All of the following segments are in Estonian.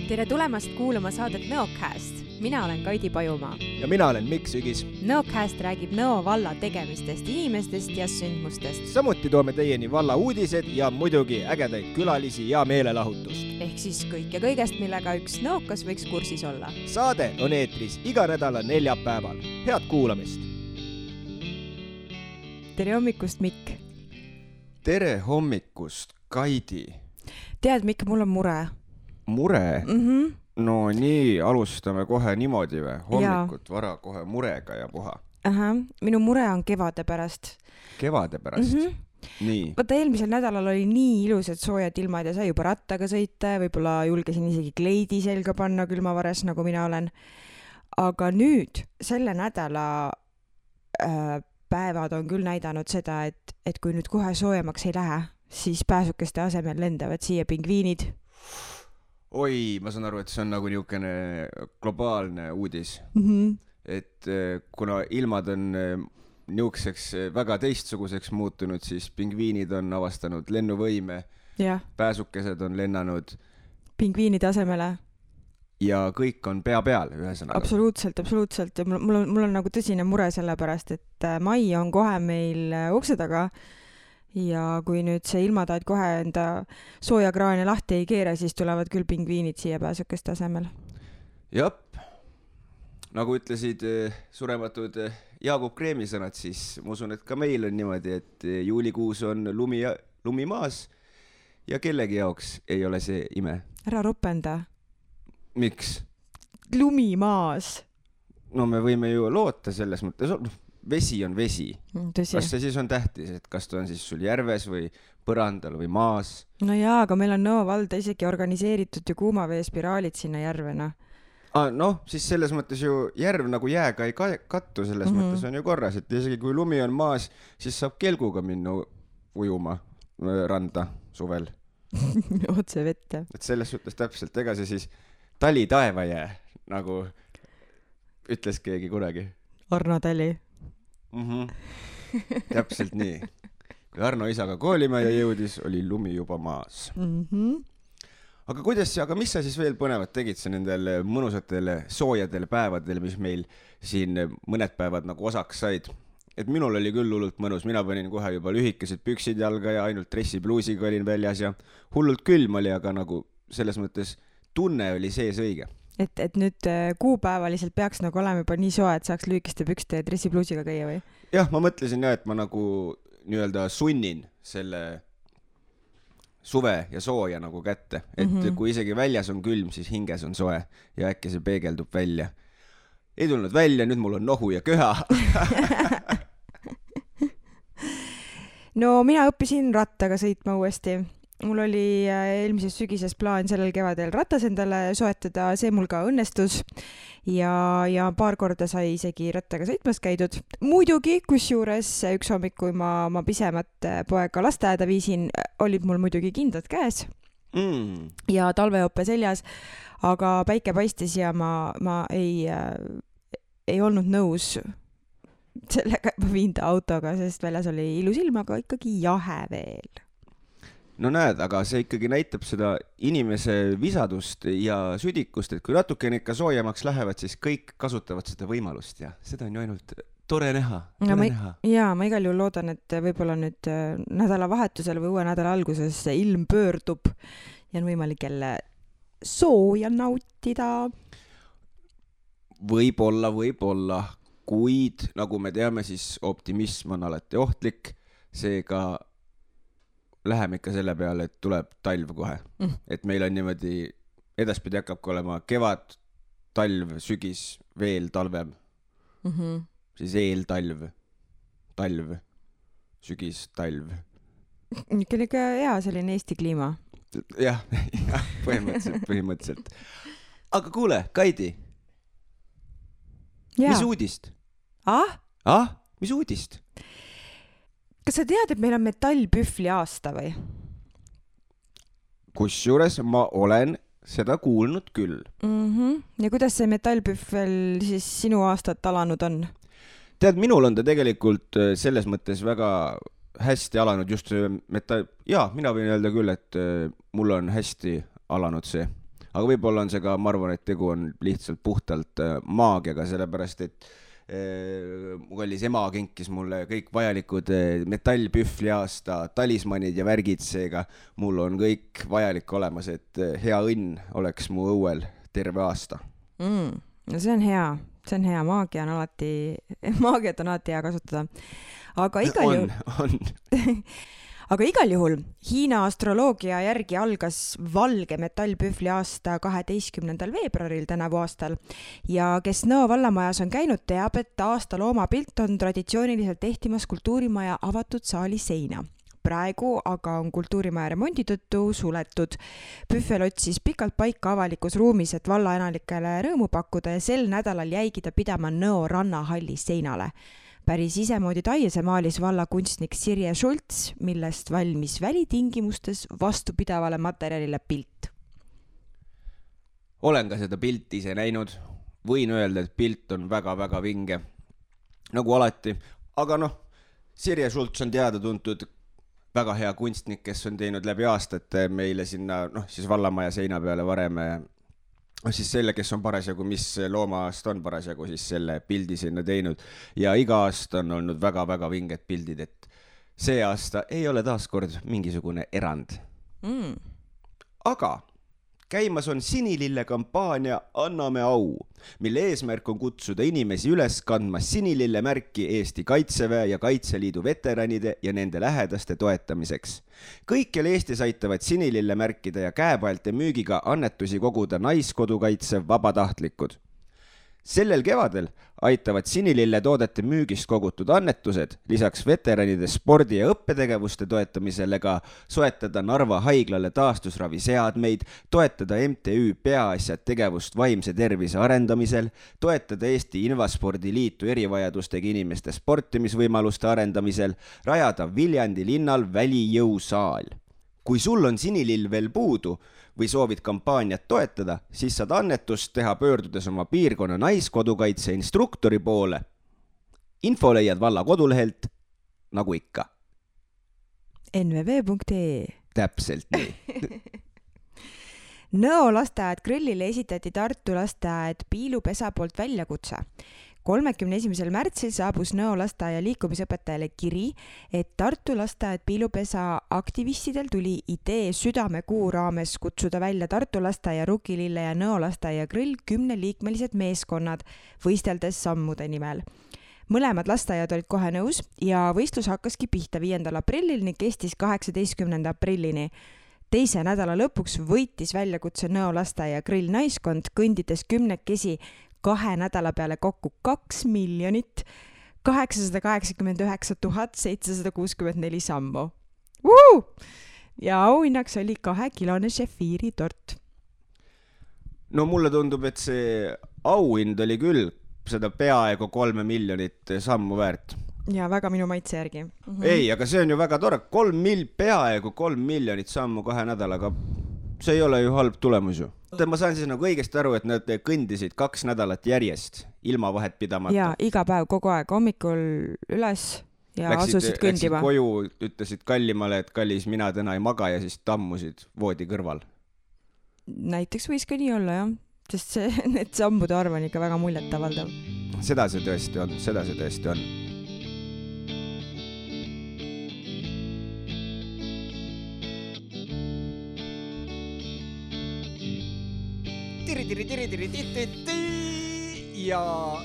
Tere tulemast kuulama saadet Nõocast. Mina olen Kaidi Pajumaa. Ja mina olen Mikk Sügis. Nõocast räägib Nõo valla tegemistest, inimestest ja sündmustest. Samuti toome teieni valla uudised ja muidugi ägedaid külalisi ja meelelahutust. Ehk siis kõik ja kõigest, millega üks nõokas võiks kursis olla. Saade on eetris iga nädala neljapäeval. Head kuulamist! Tere hommikust, Mikk! Tere hommikust, Kaidi! Tead, Mikk, mul on mure. Mure? No nii, alustame kohe niimoodi või? Hommikut vara kohe murega ja puha. Minu mure on kevade pärast. Kevade pärast? Nii. Vaata, eelmisel nädalal oli nii ilusad soojad ilmad ja sai juba rattaga sõita ja võib-olla julgesin isegi kleidi selga panna külmavares, nagu mina olen. Aga nüüd, selle nädala päevad on küll näidanud seda, et kui nüüd kohe soojemaks ei lähe, siis pääsukeste asemel lendavad siia pingviinid. Oi, ma saan aru, et see on nagu niisugune globaalne uudis. Et kuna ilmad on niisuguseks väga teistsuguseks muutunud, siis pingviinid on avastanud lennuvõime, pääsukesed on lennanud pingviinide asemele. Ja kõik on pea peal ühesõnaga. Absoluutselt. Ja mul on nagu tõsine mure selle pärast, et mai on kohe meil ukse taga. Ja kui nüüd see ilmataad kohe enda soojakraane lahti ei keera, siis tulevad küll pingviinid siia pääsukeste asemel. Jop, nagu ütlesid surematud Jaagup Kreemi sõnad, siis ma usun, et ka meil on niimoodi, et juulikuus on lumi maas ja kellegi jaoks ei ole see ime. Ära ropenda. Miks? Lumi maas. No me võime ju loota selles mõttes. Vesi on vesi. Tõsi. Kas see siis on tähtis, et kas ta on siis sul järves või põrandal või maas? No jaa, aga meil on Nõo valda isegi organiseeritud ju kuumaveespiraalid sinna järvena. Noh, siis selles mõttes ju järv nagu jääga ei kattu, selles mõttes on ju korras, et isegi kui lumi on maas, siis saab kelguga minna ujuma randa suvel. Otse vette. Et selles suhtes täpselt, ega see siis tali taeva jää, nagu ütles keegi kunagi. Arno Tali. Täpselt nii. Kui Arno isaga koolimaja jõudis, oli lumi juba maas. Aga mis sa siis veel põnevat tegid sa nendel mõnusatele soojadele päevadele, mis meil siin mõned päevad nagu osaks said? Et minul oli küll hullult mõnus, mina panin kohe juba lühikesed püksid jalga ja ainult dressipluusiga olin väljas ja hullult külm oli, aga nagu selles mõttes tunne oli sees õige. Et nüüd kuupäevaliselt peaks nagu olema juba nii soe, et saaks lühikeste pükste ja dressipluusiga käia või? Jah, ma mõtlesin et ma nagu nii-öelda sunnin selle suve ja sooja nagu kätte. Et kui isegi väljas on külm, siis hinges on soe ja äkki see peegeldub välja. Ei tulnud välja, nüüd mul on nohu ja köha. No mina õppisin rattaga sõitma uuesti. Mul oli eelmises sügises plaan sellel kevadel ratas endale soetada, see mul ka õnnestus ja paar korda sai isegi rattaga sõitmas käidud. Muidugi, kusjuures üks hommik, kui ma pisemat poega lasteaeda viisin, olid mul muidugi kindad käes ja talveoppe seljas, aga päike paistis ja ma ei olnud nõus sellega, et ma viin ta autoga, sest väljas oli ilus ilm, aga ikkagi jahe veel. No näed, aga see ikkagi näitab seda inimese visadust ja südikust, et kui natuke ikka soojemaks lähevad, siis kõik kasutavad seda võimalust ja seda on ju ainult tore näha. Jaa, ma igal juhul loodan, et võib-olla nüüd nädalavahetusel või uue nädala alguses ilm pöördub ja on võimalik jälle sooja nautida. Võib-olla, kuid nagu me teame, siis optimism on alati ohtlik, seega läheme ikka selle peale, et tuleb talv kohe. Et meil on niimoodi, edaspidi hakkabki olema kevad, talv, sügis, veel talvem. Siis eeltalv, talv, sügis, talv. Niisugune ka hea selline Eesti kliima. Jah, põhimõtteliselt. Aga kuule, Kaidi, mis uudist? Mis uudist? Kas sa tead, et meil on metallpühvli aasta või? Kusjuures ma olen seda kuulnud küll. Ja kuidas see metallpühvel siis sinu aastat alanud on? Tead, minul on ta tegelikult selles mõttes väga hästi alanud just metall... Jaa, mina võin öelda küll, et mul on hästi alanud see aga võib-olla on see ka, ma arvan, et tegu on lihtsalt puhtalt maagiaga, sellepärast et mu kallis ema kinkis mulle kõik vajalikud metallpühvli aasta talismanid ja värgid, seega mul on kõik vajalik olemas, et hea õnn oleks mu õuel terve aasta. No see on hea, maagiat on alati hea kasutada. Aga igal juhul Hiina astroloogia järgi algas valge metallpühvli aasta 12. veebruaril tänavu aastal ja kes Nõo vallamajas on käinud, teab, et aasta loomapilt on traditsiooniliselt ehtimas kultuurimaja avatud saali seina. Praegu aga on kultuurimaja remondi tõttu suletud. Pühvel otsis pikalt paika avalikus ruumis, et vallaelanikele rõõmu pakkuda ja sel nädalal jäigi ta pidama Nõo rannahalli seinale. Päris isemoodi taiese maalis valla kunstnik Sirje Schultz, millest valmis välitingimustes vastupidavale materjalile pilt. Olen ka seda pilti ise näinud. Võin öelda, et pilt on väga-väga vinge. Nagu alati. Aga Sirje Schultz on teada tuntud väga hea kunstnik, kes on teinud läbi aastate meile sinna, siis vallamaja seina peale varem siis selle, kes on parasjagu, mis loomaast on parasjagu, siis selle pildi sinna teinud. Ja iga aasta on olnud väga-väga vinged pildid, et see aasta ei ole taaskord mingisugune erand. Aga käimas on Sinilille kampaania Anname au, mille eesmärk on kutsuda inimesi üles kandma Sinilille märki Eesti Kaitseväe ja Kaitseliidu veteranide ja nende lähedaste toetamiseks. Kõikjal Eestis aitavad Sinilille märkida ja käepaelte müügiga annetusi koguda naiskodukaitse vabatahtlikud. Sellel kevadel aitavad Sinilille toodete müügist kogutud annetused lisaks veteranide spordi- ja õppetegevuste toetamisele ka soetada Narva haiglale taastusraviseadmeid, toetada MTÜ Peaasjad tegevust vaimse tervise arendamisel, toetada Eesti Invaspordi Liitu erivajadustega inimeste sportimisvõimaluste arendamisel, rajada Viljandi linnal välijõusaal. Kui sul on Sinilill veel puudu või soovid kampaaniat toetada, siis saad annetust teha pöördudes oma piirkonna naiskodukaitse instruktori poole. Info leiad valla kodulehelt, nagu ikka. nvv.ee Täpselt nii. Nõo lasteaed Grillile esitati Tartu lasteaed Piilupesa poolt väljakutse. 31. märtsil saabus Nõo lasteaia liikumisõpetajale kiri, et Tartu lasteaed Piilupesa aktivistidel tuli idee südamekuu raames kutsuda välja Tartu lasteaia Rukilille ja Nõo lasteaia Grill 10-liikmelised meeskonnad, võisteldes sammude nimel. Mõlemad lasteaiad olid kohe nõus ja võistlus hakkaski pihta 5. aprillil ning kestis 18. aprillini. Teise nädala lõpuks võitis väljakutse Nõo lasteaia Grill naiskond, kõndides 10 2 nädala peale kokku 2 889 764 sammu. Ja auhinnaks oli 2-kilone šefiiri tort. No mulle tundub, et see auhind oli küll seda peaaegu 3 miljonit sammu väärt. Ja väga minu maitse järgi. Ei, aga see on ju väga tore. Peaaegu 3 miljonit sammu 2 nädalaga. See ei ole ju halb tulemus ju. Ma saan siis nagu õigesti aru, et nad kõndisid 2 nädalat järjest, ilma vahet pidamata. Ja iga päev kogu aeg hommikul üles ja asusid kõndima. Läksid koju, ütlesid kallimale, et kallis, mina täna ei maga ja siis tammusid voodi kõrval. Näiteks võis ka nii olla, jah. Sest need sammude arv on ikka väga muljet avaldav. Seda see tõesti on. Ja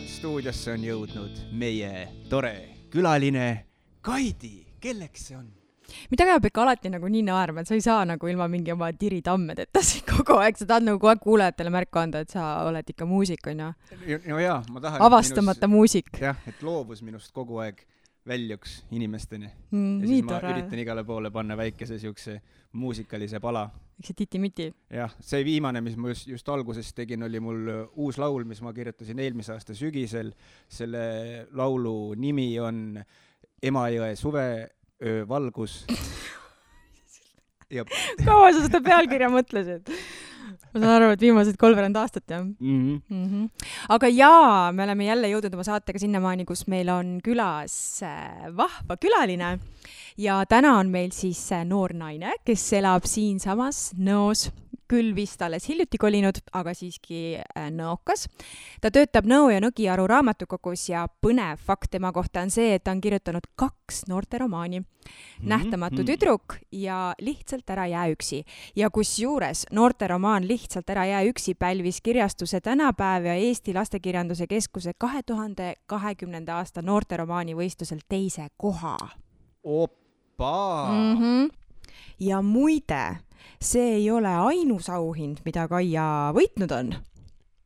stuudiosse on jõudnud meie tore külaline Kaidi. Kelleks see on? Mida peab ikka alati nagu nii naerma, et sa ei saa nagu ilma mingi oma tiritammedeta kogu aeg, sa tahad nagu kogu aeg kuulajatele märku anda, et sa oled ikka muusik, on ju? No jaa, ma tahan... Avastamata muusik. Jah, et loovus minust kogu aeg väljuks inimesteni. Ja siis ma üritan igale poole panna väikese siukse muusikalise pala. Eks see titi-miti. Jah, see viimane, mis ma just alguses tegin, oli mul uus laul, mis ma kirjutasin eelmise aasta sügisel. Selle laulu nimi on Emajõe suvevalgus. Kaua sa seda pealkirja mõtlesid? Ma saan aru, et viimased 3 aastat, jah? Aga jaa, me oleme jälle jõudnud oma saatega sinnamaani, kus meil on külas vahva külaline ja täna on meil siis noor naine, kes elab siinsamas Nõos küll vist alles hiljuti kolinud, aga siiski nõokas. Ta töötab Nõo ja Nõgiaru raamatukogus ja põnev fakt tema kohta on see, et ta on kirjutanud 2 noorteromaani. Nähtamatu tüdruk ja Lihtsalt ära jää üksi. Ja kusjuures noorteromaan Lihtsalt ära jää üksi pälvis kirjastuse Tänapäev ja Eesti Lastekirjanduse Keskuse 2020. aasta noorteromaani võistlusel 2. koha. Oppa! Ja muide, see ei ole ainus auhind, mida Kaia võitnud on.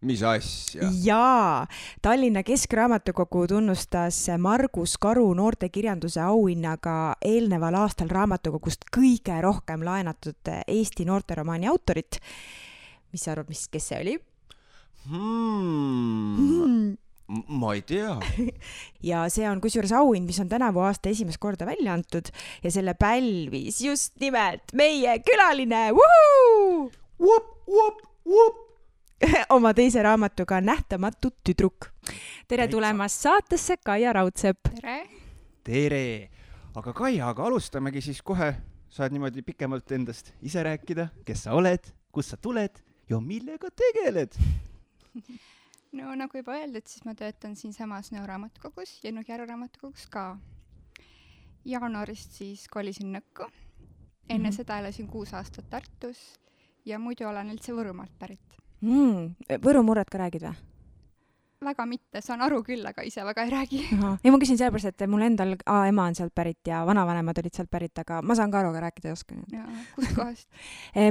Mis asja? Jaa, Tallinna Keskraamatukogu tunnustas Margus Karu noortekirjanduse auhinnaga eelneval aastal raamatukogust kõige rohkem laenatud Eesti noorteromaani autorit. Mis sa arvad, kes see oli? Ma ei tea. Ja see on kusjuures auhind, mis on tänavu aasta esimest korda välja antud ja selle pälvis just nimelt meie külaline oma teise raamatuga Nähtamatu tüdruk. Tere tulemast saatesse, Kaia Raudsepp. Tere! Aga Kaia, alustamegi siis kohe. Saad niimoodi pikemalt endast ise rääkida, kes sa oled, kust sa tuled ja millega tegeled? No nagu juba öeldud, siis ma töötan siin samas Nõo raamatukogus ja Nõgiaru raamatukogus ka. Jaanuarist siis kolisin Nõkku. Enne seda elasin 6 aastat Tartus ja muidu olen üldse Võrumaalt pärit. Võru murret ka räägid või? Väga mitte, saan aru küll, aga ise väga ei räägi. Ei, ma küsin sellepärast, et mul endal ema on sealt pärit ja vanavanemad olid sealt pärit, aga ma saan ka aru, aga rääkida ei oska. Kust kohast?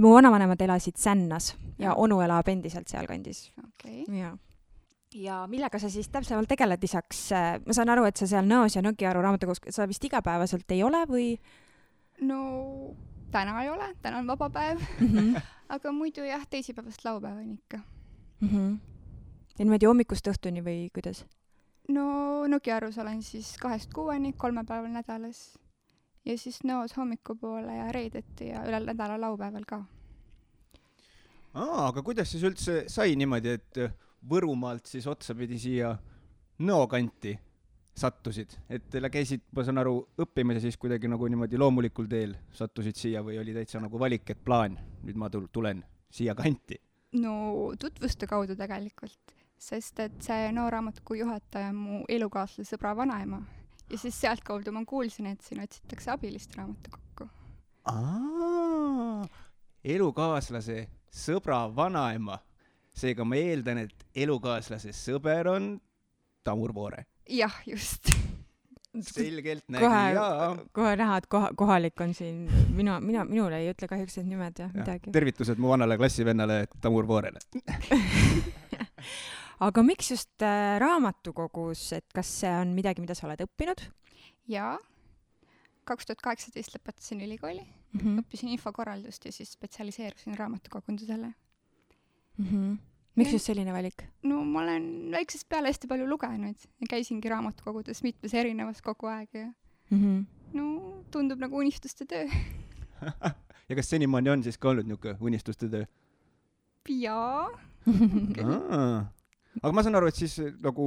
Mu vanavanemad elasid Sännas ja onu elab endiselt seal kandis. Okay. Ja millega sa siis täpsemalt tegeled lisaks? Ma saan aru, et sa seal Nõos ja Nõgiaru raamatukogus, sa vist igapäevaselt ei ole või? No täna ei ole, täna on vaba päev, aga muidu jah, teisipäevast laupäevani ikka. Ja niimoodi hommikust õhtuni või kuidas? No Nõgiarus olen siis 2-6, 3 päeval nädalas ja siis Nõos hommikupoole ja reedeti ja üle nädala laupäeval ka. Aga kuidas siis üldse sai niimoodi, et Võrumaalt siis otsapidi siia Nõo kanti sattusid? Et teile käisid, ma saan aru, õppimise siis kuidagi nagu niimoodi loomulikul teel sattusid siia või oli täitsa nagu valik, et plaan, nüüd ma tulen siia kanti? No tutvuste kaudu tegelikult, sest et see Nõo raamatukogu juhataja on mu elukaaslase sõbra vanaema ja siis sealt kaudu ma kuulsin, et siin otsitakse abilist raamatukokku. Elukaaslase sõbra vanaema. Seega ma eeldan, et elukaaslase sõber on Tamur Voore. Jah, just. Selgelt nägi, Kohe näha, et kohalik on siin. Minule ei ütle kahjuks need nimed ja midagi. Tervitused mu vanale klassivennale Tamur Voorele. Aga miks just raamatukogus, et kas see on midagi, mida sa oled õppinud? Jaa. 2018 lõpetasin ülikooli, õppisin infokorraldust ja siis spetsialiseerusin raamatukogundusele. Miks just selline valik? No ma olen väiksest peale hästi palju lugenud ja käisingi raamatukogudes mitmes erinevas kogu aeg ja no tundub nagu unistuste töö. Ja kas senimaani on siis ka olnud niisugune unistuste töö? Jaa. Aga ma saan aru, et siis nagu,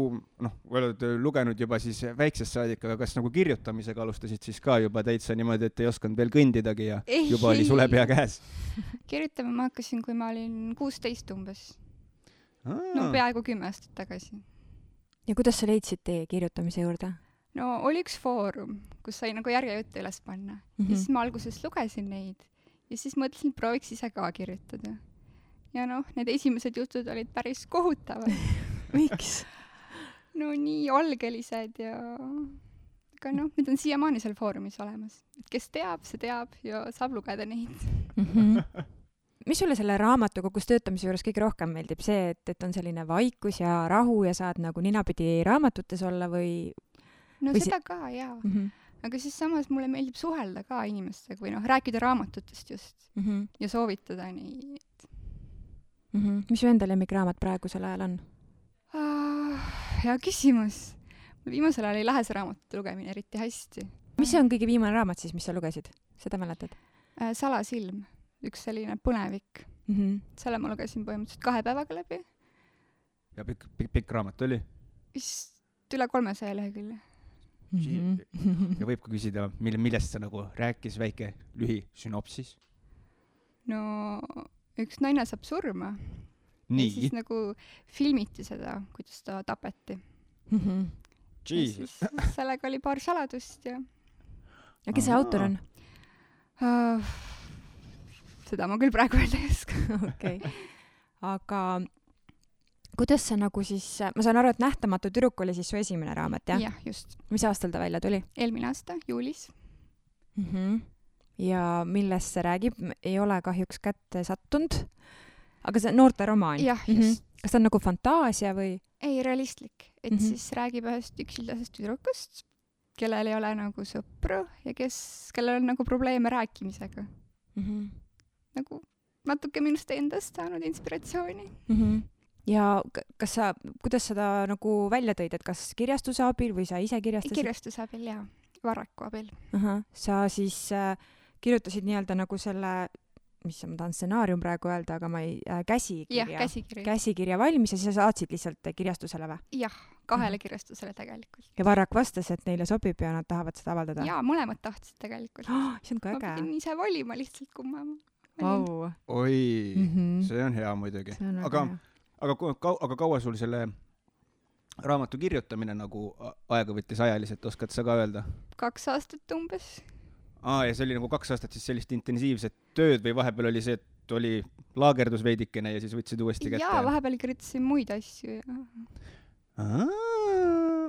oled lugenud juba siis väiksest saadik, aga kas nagu kirjutamisega alustasid siis ka juba täitsa niimoodi, et ei osanud veel kõndidagi ja juba oli sulepea käes? Kirjutama ma hakkasin, kui ma olin 16 umbes. No peaaegu 10 aastat tagasi. Ja kuidas sa leidsid teie kirjutamise juurde? No oli üks foorum, kus sai nagu järjejutte üles panna. Ja siis ma alguses lugesin neid ja siis mõtlesin, prooviks ise ka kirjutada. Ja need esimesed jutud olid päris kohutavad. Miks? No nii algelised ja aga need on siiamaani seal foorumis olemas. Et kes teab, see teab ja saab lugeda neid. Mis sulle selle raamatukogus töötamise juures kõige rohkem meeldib? See, et on selline vaikus ja rahu ja saad nagu ninapidi raamatutes olla või? No seda ka, jaa. Aga siis samas mulle meeldib suhelda ka inimestega või rääkida raamatutest just ja soovitada nii. Mis su enda lemmikraamat praegusel ajal on? Hea küsimus. Mul viimasel ajal ei lähe see raamatute lugemine eriti hästi. Mis see on kõige viimane raamat siis, mis sa lugesid? Seda mäletad? Salasilm. Üks selline põnevik. Selle ma lugesin põhimõtteliselt 2 päevaga läbi. Ja pikk raamat oli? Vist üle 300 lehekülje. Ja võib ka küsida, millest sa nagu rääkis väike lühi sünopsis? No üks naine saab surma ja nii siis , nagu filmiti seda, kuidas ta tapeti. Ja Jesus . siis sellega oli paar saladust ja ja kes see autor on ? seda ma küll praegu öelda ei oska. okei . aga kuidas sa nagu siis , ma saan aru , et Nähtamatu tüdruk oli siis su esimene raamat , jah ? jah , just . mis aastal ta välja tuli ? eelmine aasta juulis. ja millest see räägib ? ei ole kahjuks kätte sattunud . aga see on noorteromaan ? jah , just . kas ta on nagu fantaasia või ? ei , realistlik , et siis räägib ühest üksildasest tüdrukust, kellel ei ole nagu sõpru ja kellel on nagu probleeme rääkimisega . nagu natuke minust endast saanud inspiratsiooni . ja kas sa , kuidas seda nagu välja tõid , et kas kirjastuse abil või sa ise kirjastasid ? kirjastuse abil ja Varraku abil . sa siis kirjutasid nii-öelda nagu selle , mis ma tahan stsenaarium praegu öelda , aga ma ei , jah , käsikirja , käsikiri . käsikirja valmis ja siis sa saatsid lihtsalt kirjastusele või ? jah , 2 kirjastusele tegelikult . ja Varrak vastas , et neile sobib ja nad tahavad seda avaldada ? jaa , mõlemad tahtsid tegelikult . see on ka ma äge . pidin ise valima lihtsalt , kumma ma . Vau . oi , Mhm. see on hea muidugi . see on väga aga hea . aga kaua sul selle raamatu kirjutamine nagu aega võttis ajaliselt , oskad sa ka öelda ? 2 aastat umbes . ja see oli nagu 2 aastat siis sellist intensiivset tööd või vahepeal oli see , et oli laagerdus veidikene ja siis võtsid uuesti kätte ? jaa , vahepeal kirjutasin muid asju ja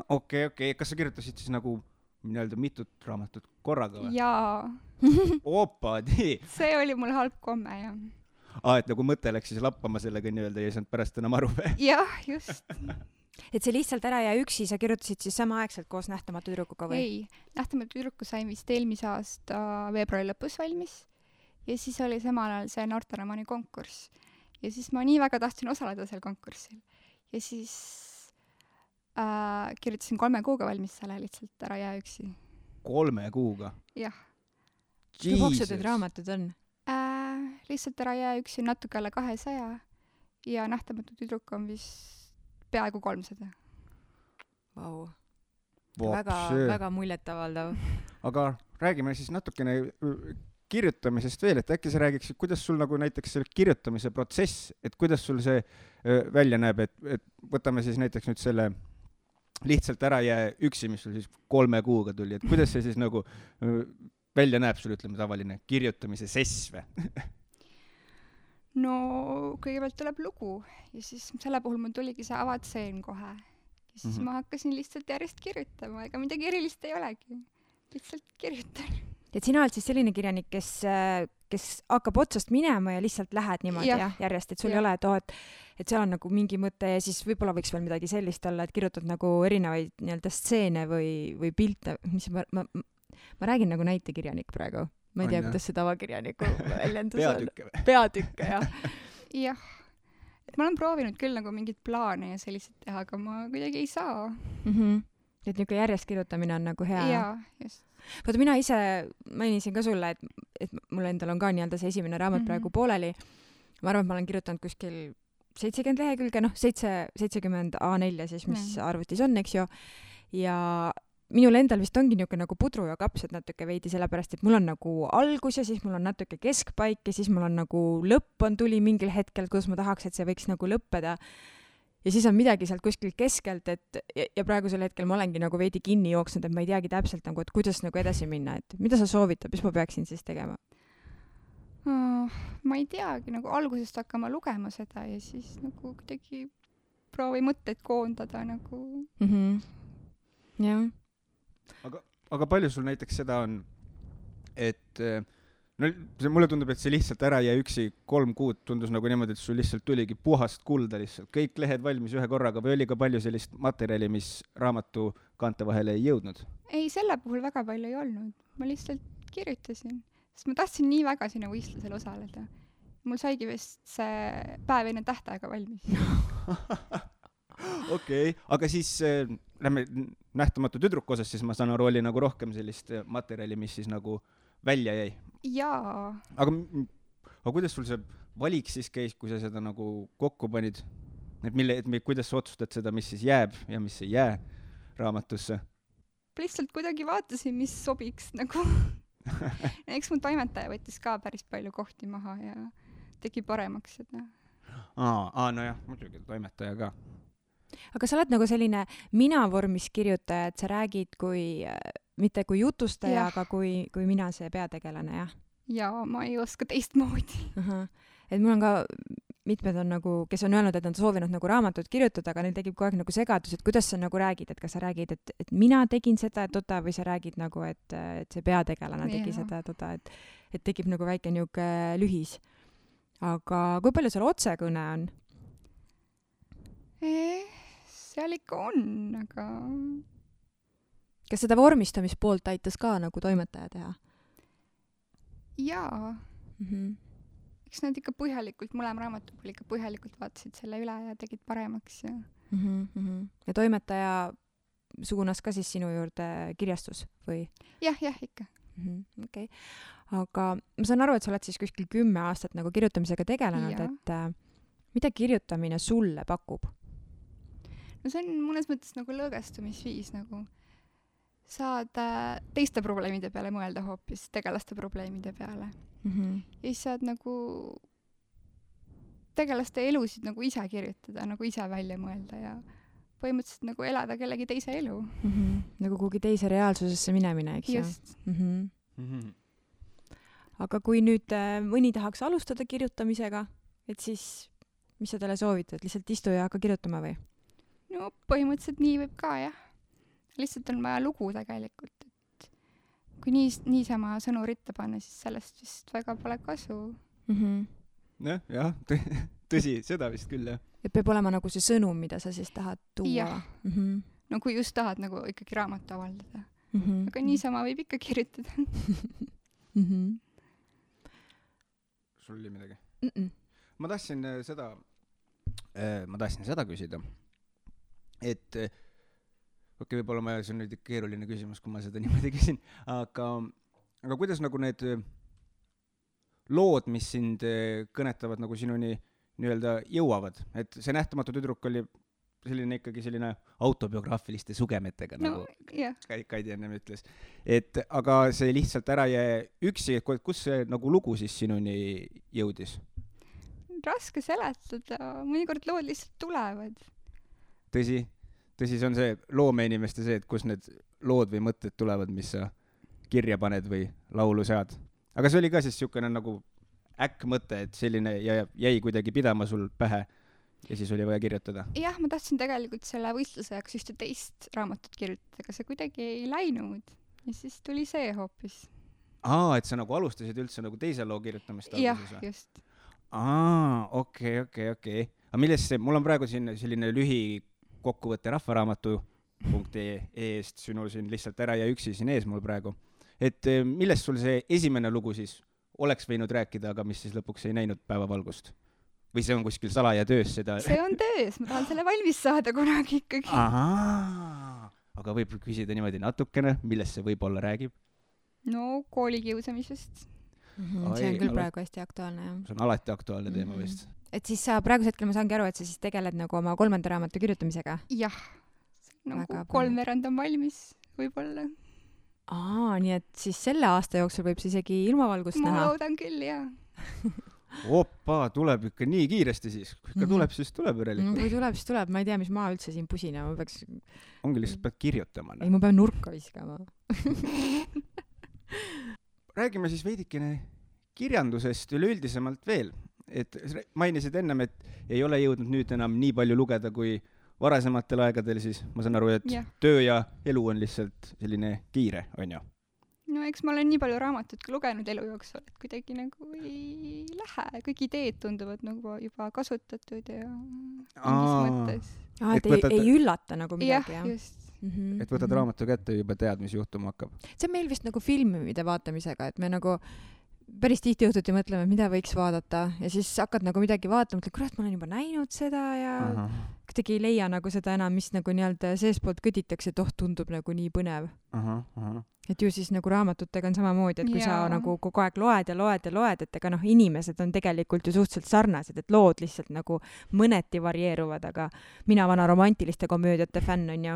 okei , kas sa kirjutasid siis nagu nii-öelda mitut raamatut korraga või ? jaa , opadi . see oli mul halb komme ja et nagu mõte läks siis lappama sellega nii-öelda ja ei saanud pärast enam aru või ? jah , just . et see Lihtsalt ära jää üksi , sa kirjutasid siis samaaegselt koos Nähtamatu tüdrukuga või ? ei , Nähtamatu tüdruku sain vist eelmise aasta veebruari lõpus valmis ja siis oli samal ajal see noorteromaani konkurss ja siis ma nii väga tahtsin osaleda seal konkursil ja siis kirjutasin 3 kuuga valmis selle Lihtsalt ära jää üksi . 3 kuuga ? jah , kui paksud need raamatud on ? Lihtsalt ära jää üksi natuke alla 200 ja Nähtamatu tüdruk on vist peaaegu 300 . Vau . väga muljetavaldav . aga räägime siis natukene kirjutamisest veel , et äkki sa räägiksid , kuidas sul nagu näiteks see kirjutamise protsess , et kuidas sul see välja näeb , et võtame siis näiteks nüüd selle Lihtsalt ära jää üksi , mis sul siis 3 kuuga tuli , et kuidas see siis nagu välja näeb sul , ütleme tavaline kirjutamise sess või ? no kõigepealt tuleb lugu ja siis selle puhul mul tuligi see avatseen kohe ja siis ma hakkasin lihtsalt järjest kirjutama , ega midagi erilist ei olegi , lihtsalt kirjutan . et sina oled siis selline kirjanik , kes hakkab otsast minema ja lihtsalt lähed niimoodi jah , järjest , et sul ei ole , et seal on nagu mingi mõte ja siis võib-olla võiks veel midagi sellist olla , et kirjutad nagu erinevaid nii-öelda stseene või pilte , mis ma räägin nagu näitekirjanik praegu . ma ei tea , kuidas see tavakirjaniku väljendus on . peatükke või ? peatükke , jah . jah , et ma olen proovinud küll nagu mingeid plaane ja selliseid teha , aga ma kuidagi ei saa . et niisugune järjest kirjutamine on nagu hea . jaa , just . vaata , mina ise mainisin ka sulle , et mul endal on ka nii-öelda see esimene raamat praegu pooleli . ma arvan , et ma olen kirjutanud kuskil 70 lehekülge , 70 A4 siis , mis arvutis on , eks ju . ja minul endal vist ongi niisugune nagu pudru ja kapsad natuke veidi , sellepärast et mul on nagu algus ja siis mul on natuke keskpaik ja siis mul on nagu lõpp tuli mingil hetkel , kus ma tahaks , et see võiks nagu lõppeda . ja siis on midagi sealt kuskilt keskelt , et ja praegusel hetkel ma olengi nagu veidi kinni jooksnud , et ma ei teagi täpselt nagu , et kuidas nagu edasi minna , et mida sa soovitad , mis ma peaksin siis tegema ? ma ei teagi , nagu algusest hakkama lugema seda ja siis nagu kuidagi proovi mõtteid koondada nagu . jah . aga palju sul näiteks seda on , et no mulle tundub , et see Lihtsalt ära jää üksi 3 kuud tundus nagu niimoodi , et sul lihtsalt tuligi puhast kulda lihtsalt , kõik lehed valmis ühe korraga või oli ka palju sellist materjali , mis raamatu kaante vahele ei jõudnud ? ei , selle puhul väga palju ei olnud , ma lihtsalt kirjutasin , sest ma tahtsin nii väga sinna võistlusel osaleda . mul saigi vist see päev enne tähtaega valmis . okei , aga siis lähme Nähtamatu tüdruku osas , siis ma saan aru , oli nagu rohkem sellist materjali , mis siis nagu välja jäi . jaa , aga kuidas sul see valik siis käis , kui sa seda nagu kokku panid ? kuidas sa otsustad seda , mis siis jääb ja mis ei jää raamatusse ? lihtsalt kuidagi vaatasin , mis sobiks nagu . eks mu toimetaja võttis ka päris palju kohti maha ja tegi paremaks seda. Nojah, muidugi toimetaja ka. aga sa oled nagu selline mina-vormis kirjutaja, et sa räägid kui, mitte kui jutustaja, aga kui mina, see peategelane, jah? Ja ma ei oska teistmoodi. Et mul on ka mitmed on nagu, kes on öelnud, et nad soovinud nagu raamatut kirjutada, aga neil tekib kogu aeg nagu segadus, et kuidas sa nagu räägid, et kas sa räägid, et mina tegin seda, või sa räägid nagu, et see peategelane tegi seda, et tekib nagu väike niuke lühis. Aga kui palju seal otsekõne on? Seal ikka on, aga... Kas seda vormistamispoolt aitas ka nagu toimetaja teha? Jaa. Eks nad ikka põhjalikult, mõlema raamatu puhul ikka põhjalikult vaatasid selle üle ja tegid paremaks. Ja toimetaja suunas ka siis sinu juurde kirjastus või? Jah, ikka. Okay. Aga ma saan aru, et sa oled siis kuskil 10 aastat nagu kirjutamisega tegelenud, et mida kirjutamine sulle pakub? No see on mõnes mõttes nagu lõõgestumisviis, nagu saad teiste probleemide peale mõelda hoopis, tegelaste probleemide peale. Ja siis saad nagu tegelaste elusid nagu ise kirjutada, nagu ise välja mõelda ja põhimõtteliselt nagu elada kellegi teise elu. Nagu kuhugi teise reaalsusesse minemine, eks ju? Just. Aga kui nüüd mõni tahaks alustada kirjutamisega, et siis mis sa talle soovitad? Lihtsalt istu ja hakka kirjutama või? No põhimõtteliselt nii võib ka, jah. Lihtsalt on vaja lugu tegelikult, et kui niisama sõnu ritta panna, siis sellest vist väga pole kasu. Jah, tõsi, seda vist küll, jah. Et peab olema nagu see sõnum, mida sa siis tahad tuua? Jah. No kui just tahad nagu ikkagi raamatu avaldada. Aga niisama võib ikka kirjutada. Sul oli midagi? Ma tahtsin seda küsida, et võib-olla see on nüüd keeruline küsimus, kui ma seda niimoodi küsin, aga kuidas nagu need lood, mis sind kõnetavad nagu sinuni nii-öelda jõuavad, et see Nähtamatu tüdruk oli selline autobiograafiliste sugemetega, nagu Kaidi ennem ütles. Aga see lihtsalt ära jäi üksi, kus see nagu lugu siis sinuni jõudis? Raske seletada, mõnikord lood lihtsalt tulevad. Tõsi, see on see loomeinimeste see, et kus need lood või mõtted tulevad, mis sa kirja paned või laulu sead. Aga see oli ka siis niisugune nagu mõte, et selline jäi kuidagi pidama sul pähe ja siis oli vaja kirjutada. Jah, ma tahtsin tegelikult selle võistluse jaoks ühte teist raamatut kirjutada, aga see kuidagi ei läinud ja siis tuli see hoopis. Et sa nagu alustasid üldse nagu teise loo kirjutamist? Jah, just. Okei. Aga millest see, mul on praegu siin selline lühikokkuvõtte rahvaraamatu.ee-st sinul siin lihtsalt ära ja üksi siin ees mul praegu. Et millest sul see esimene lugu siis oleks võinud rääkida, aga mis siis lõpuks ei näinud päevavalgust? Või see on kuskil salaja töös seda? See on töös, ma tahan selle valmis saada kunagi ikkagi. Aga võib küsida niimoodi natukene, millest see võib-olla räägib? No koolikiusamisest. See on küll praegu hästi aktuaalne, jah. See on alati aktuaalne teema vist. Et siis sa praegusel hetkel, ma saangi aru, et sa siis tegeled nagu oma 3. raamatu kirjutamisega? Jah, nagu 3/4 on valmis võib-olla. Nii et siis selle aasta jooksul võib see isegi ilmavalgust näha? Ma loodan küll, jah. Tuleb ikka nii kiiresti siis. Kui ikka tuleb, siis tuleb järelikult. Kui tuleb, siis tuleb. Ma ei tea, mis ma üldse siin pusina. Ma peaks... Ongi lihtsalt pead kirjutama. Ei, ma pean nurka viskama. Räägime siis veidikene kirjandusest üleüldisemalt veel. Et mainisid ennem, et ei ole jõudnud nüüd enam nii palju lugeda kui varasematel aegadel, siis ma saan aru, et töö ja elu on lihtsalt selline kiire, on ju? No eks ma olen nii palju raamatut lugenud elu jooksul, et kuidagi nagu ei lähe. Kõik ideed tunduvad nagu juba kasutatud ja mingis mõttes. Et ei üllata nagu midagi, jah? Just. Et võtad raamatu kätte ja juba tead, mis juhtuma hakkab. See on meil vist nagu filmide vaatamisega, et me nagu päris tihti õhtuti mõtleme, mida võiks vaadata ja siis hakkad nagu midagi vaatama, mõtled, kurat, ma olen juba näinud seda ja kuidagi ei leia nagu seda enam, mis nagu nii-öelda seespoolt kõditakse, et tundub nagu nii põnev. Et ju siis nagu raamatutega on samamoodi, et kui sa nagu kogu aeg loed, et ega inimesed on tegelikult ju suhteliselt sarnased, et lood lihtsalt nagu mõneti varieeruvad, aga mina vana romantiliste komöödiate fänn on ju.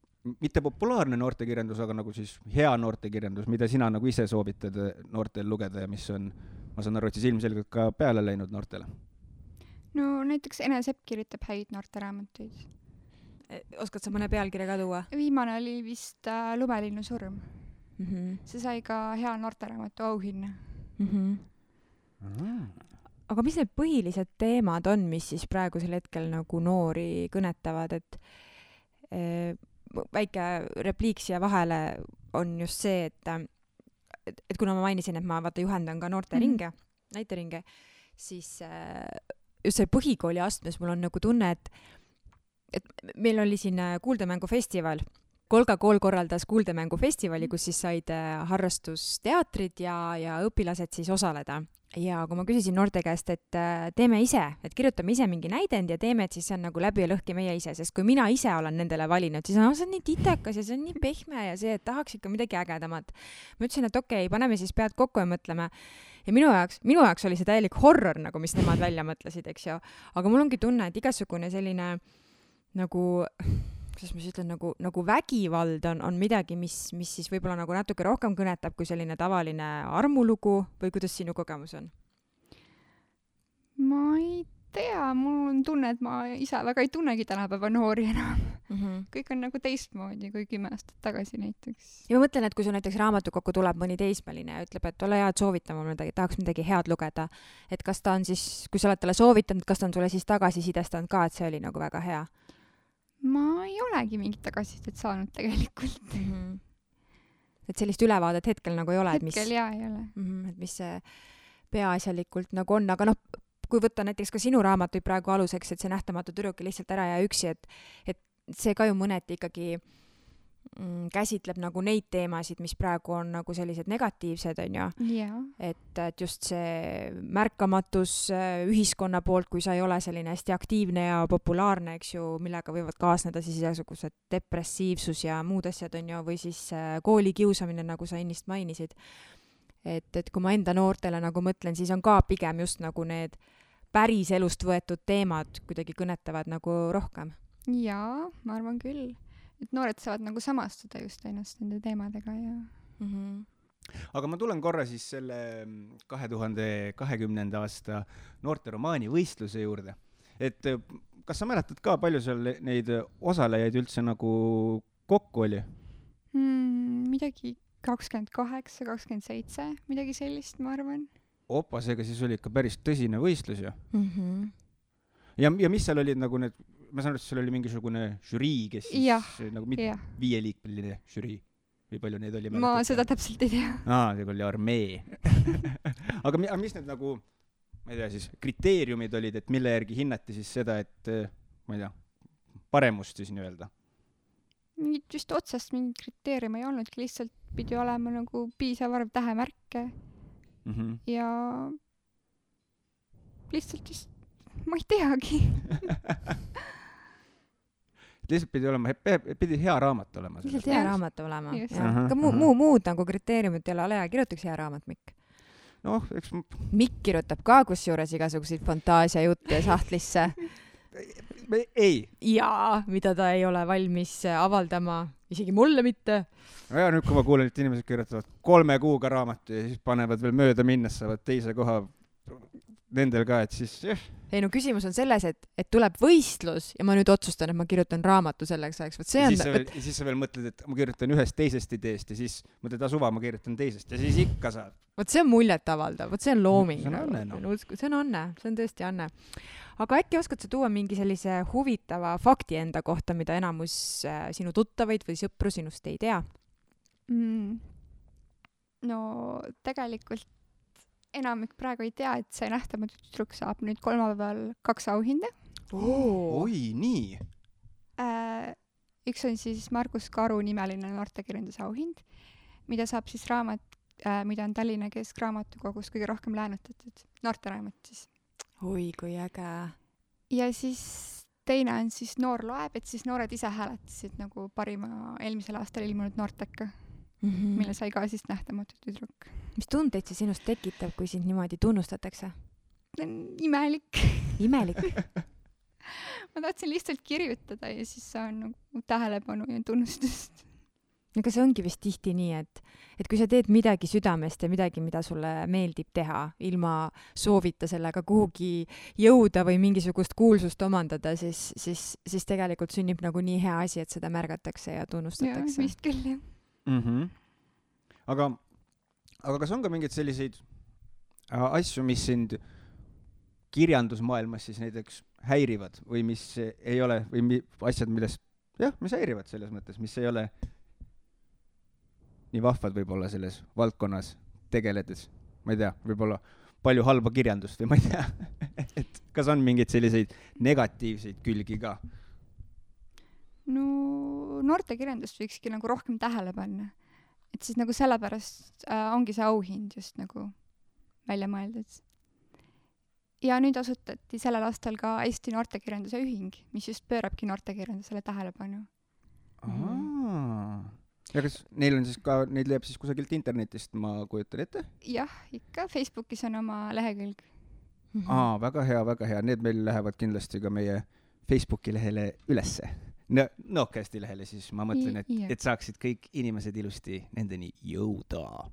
mitte populaarne noortekirjandus, aga nagu siis hea noortekirjandus, mida sina nagu ise soovitad noortel lugeda ja mis on, ma saan aru, et siis ilmselgelt ka peale läinud noortele? no näiteks Ene Sepp kirjutab häid noorteraamatuid. Oskad sa mõne pealkirja ka tuua? Viimane oli vist Lumelinnu surm. See sai ka hea noorteraamatu auhinna. Aga mis need põhilised teemad on, mis siis praegusel hetkel nagu noori kõnetavad, et väike repliik siia vahele on just see, et kuna ma mainisin, et ma juhendan ka noorteringe, näiteringe, siis just see põhikooli astmes mul on nagu tunne, et meil oli siin kuuldemängufestival. Kolga kool korraldas kuuldemängufestivali, kus siis said harrastusteatrid ja õpilased siis osaleda. Ja kui ma küsisin noorte käest, et teeme ise, et kirjutame ise mingi näidend ja teeme, et siis see on nagu läbi ja lõhki meie ise, sest kui mina ise olen nendele valinud, siis see on nii titekas ja see on nii pehme ja see, et tahaks ikka midagi ägedamat. Ma ütlesin, et okei, paneme siis pead kokku ja mõtleme. Ja minu jaoks oli see täielik horror, nagu mis nemad välja mõtlesid, eks ju. Aga mul ongi tunne, et igasugune selline nagu... kuidas ma siis ütlen, nagu vägivald on midagi, mis siis võib-olla nagu natuke rohkem kõnetab kui selline tavaline armulugu või kuidas sinu kogemus on? Ma ei tea, mul on tunne, et ma ise väga ei tunnegi tänapäeva noori enam. Kõik on nagu teistmoodi kui 10 aastat tagasi näiteks. Ja ma mõtlen, et kui sul näiteks raamatukokku tuleb mõni teismeline ja ütleb, et ole hea, et soovitama midagi, tahaks midagi head lugeda, et kas ta on siis, kui sa oled talle soovitanud, kas ta on sulle siis tagasisidestanud ka, et see oli nagu väga hea? Ma ei olegi mingit tagasisidet saanud tegelikult. Et sellist ülevaadet hetkel nagu ei ole. Hetkel jaa ei ole. Et mis see peaasjalikult nagu on, aga kui võtta näiteks ka sinu raamatuid praegu aluseks, et see nähtamatu tüdruk lihtsalt ära ja üksi, et see ka ju mõneti ikkagi käsitleb nagu neid teemasid, mis praegu on nagu sellised negatiivsed, on ju. Yeah. Et just see märkamatus ühiskonna poolt, kui sa ei ole selline hästi aktiivne ja populaarne, eks ju, millega võivad kaasneda siis igasugused depressiivsus ja muud asjad, on ju, või siis koolikiusamine, nagu sa ennist mainisid. Et kui ma enda noortele nagu mõtlen, siis on ka pigem just nagu need päris elust võetud teemad kuidagi kõnetavad nagu rohkem. Jaa, ma arvan küll. Et noored saavad nagu samastuda just ennast nende teemadega ja... Aga ma tulen korra siis selle 2020. aasta noorteromaani võistluse juurde. Et kas sa mäletad ka, palju seal neid osalejaid üldse nagu kokku oli? Midagi 28, 27, midagi sellist, ma arvan. Opa, seega siis oli ikka päris tõsine võistlus ju. Ja mis seal olid nagu need... Ma saan aru, et seal oli mingisugune žürii, kes siis nagu 5-liikmeline žürii või palju neid oli? Ma seda täpselt ei tea. See oli armee. Aga mis need nagu, ma ei tea siis, kriteeriumid olid, et mille järgi hinnati siis seda, et ma ei tea, paremust siis nii-öelda? Mingit just otsast mingit kriteerium ei olnudki, lihtsalt pidi olema nagu piisav arv tähemärke ja lihtsalt just ma ei teagi. Lihtsalt pidi hea raamat olema. Lihtsalt hea raamat olema. Ka muud nagu kriteeriumid ei ole, ole hea, kirjutaks hea raamat, Mikk. Eks... Mikk kirjutab ka kusjuures igasuguseid fantaasia jutte sahtlisse. Ei. Jaa, mida ta ei ole valmis avaldama, isegi mulle mitte. Ja nüüd, kui ma kuulen, et inimesed kirjutavad 3 kuuga raamatu ja siis panevad veel mööda minnes, saavad teise koha nendel ka, et siis... Ei, no küsimus on selles, et tuleb võistlus ja ma nüüd otsustan, et ma kirjutan raamatu selleks ajaks. Siis sa veel mõtled, et ma kirjutan ühest teisest ideest ja siis mõtled, suva, ma kirjutan teisest ja siis ikka saad. Vot see on muljet avaldav, vot see on looming. See on anne, See on anne, see on tõesti anne. Aga äkki oskad sa tuua mingi sellise huvitava fakti enda kohta, mida enamus sinu tuttavaid või sõpru sinust ei tea? No tegelikult enamik praegu ei tea, et see nähtamatu tüdruk saab nüüd kolmapäeval 2 auhinda. Oi, nii! Üks on siis Margus Karu nimeline noortekirjanduse auhind, mida saab siis raamat, mida on Tallinna Keskraamatukogus kõige rohkem läänutatud. Noorteraamat siis. Oi, kui äge! Ja siis teine on siis Noor loeb, et siis noored ise hääletasid nagu parima eelmisel aastal ilmunud noorteka. Mille sai ka siis nähtamatu tüdruk. Mis tundeid see sinust tekitab, kui sind niimoodi tunnustatakse? Imelik. Imelik? ma tahtsin lihtsalt kirjutada ja siis saan nagu tähelepanu ja tunnustust. aga see ongi vist tihti nii, et kui sa teed midagi südamest ja midagi, mida sulle meeldib teha, ilma soovita sellega kuhugi jõuda või mingisugust kuulsust omandada, siis tegelikult sünnib nagu nii hea asi, et seda märgatakse ja tunnustatakse. Ja, vist küll, jah. Aga kas on ka mingeid selliseid asju, mis sind kirjandusmaailmas siis näiteks häirivad või mis ei ole, või asjad, millest, mis häirivad selles mõttes, mis ei ole nii vahvad võib-olla selles valdkonnas tegeledes, ma ei tea, võib-olla palju halba kirjandust või ma ei tea, et kas on mingeid selliseid negatiivseid külgi ka? No noortekirjandust võikski nagu rohkem tähele panna. Et siis nagu sellepärast ongi see auhind just nagu välja mõeldud. Ja nüüd asutati sellel aastal ka Eesti noortekirjanduse ühing, mis just pöörabki noortekirjandusele tähelepanu. Ja kas neil on siis ka, neid leiab siis kusagilt internetist, ma kujutan ette? Jah, ikka Facebookis on oma lehekülg. Väga hea. Need meil lähevad kindlasti ka meie Facebooki lehele ülesse. Nokesti lehele siis, ma mõtlen, et saaksid kõik inimesed ilusti nendeni jõuda.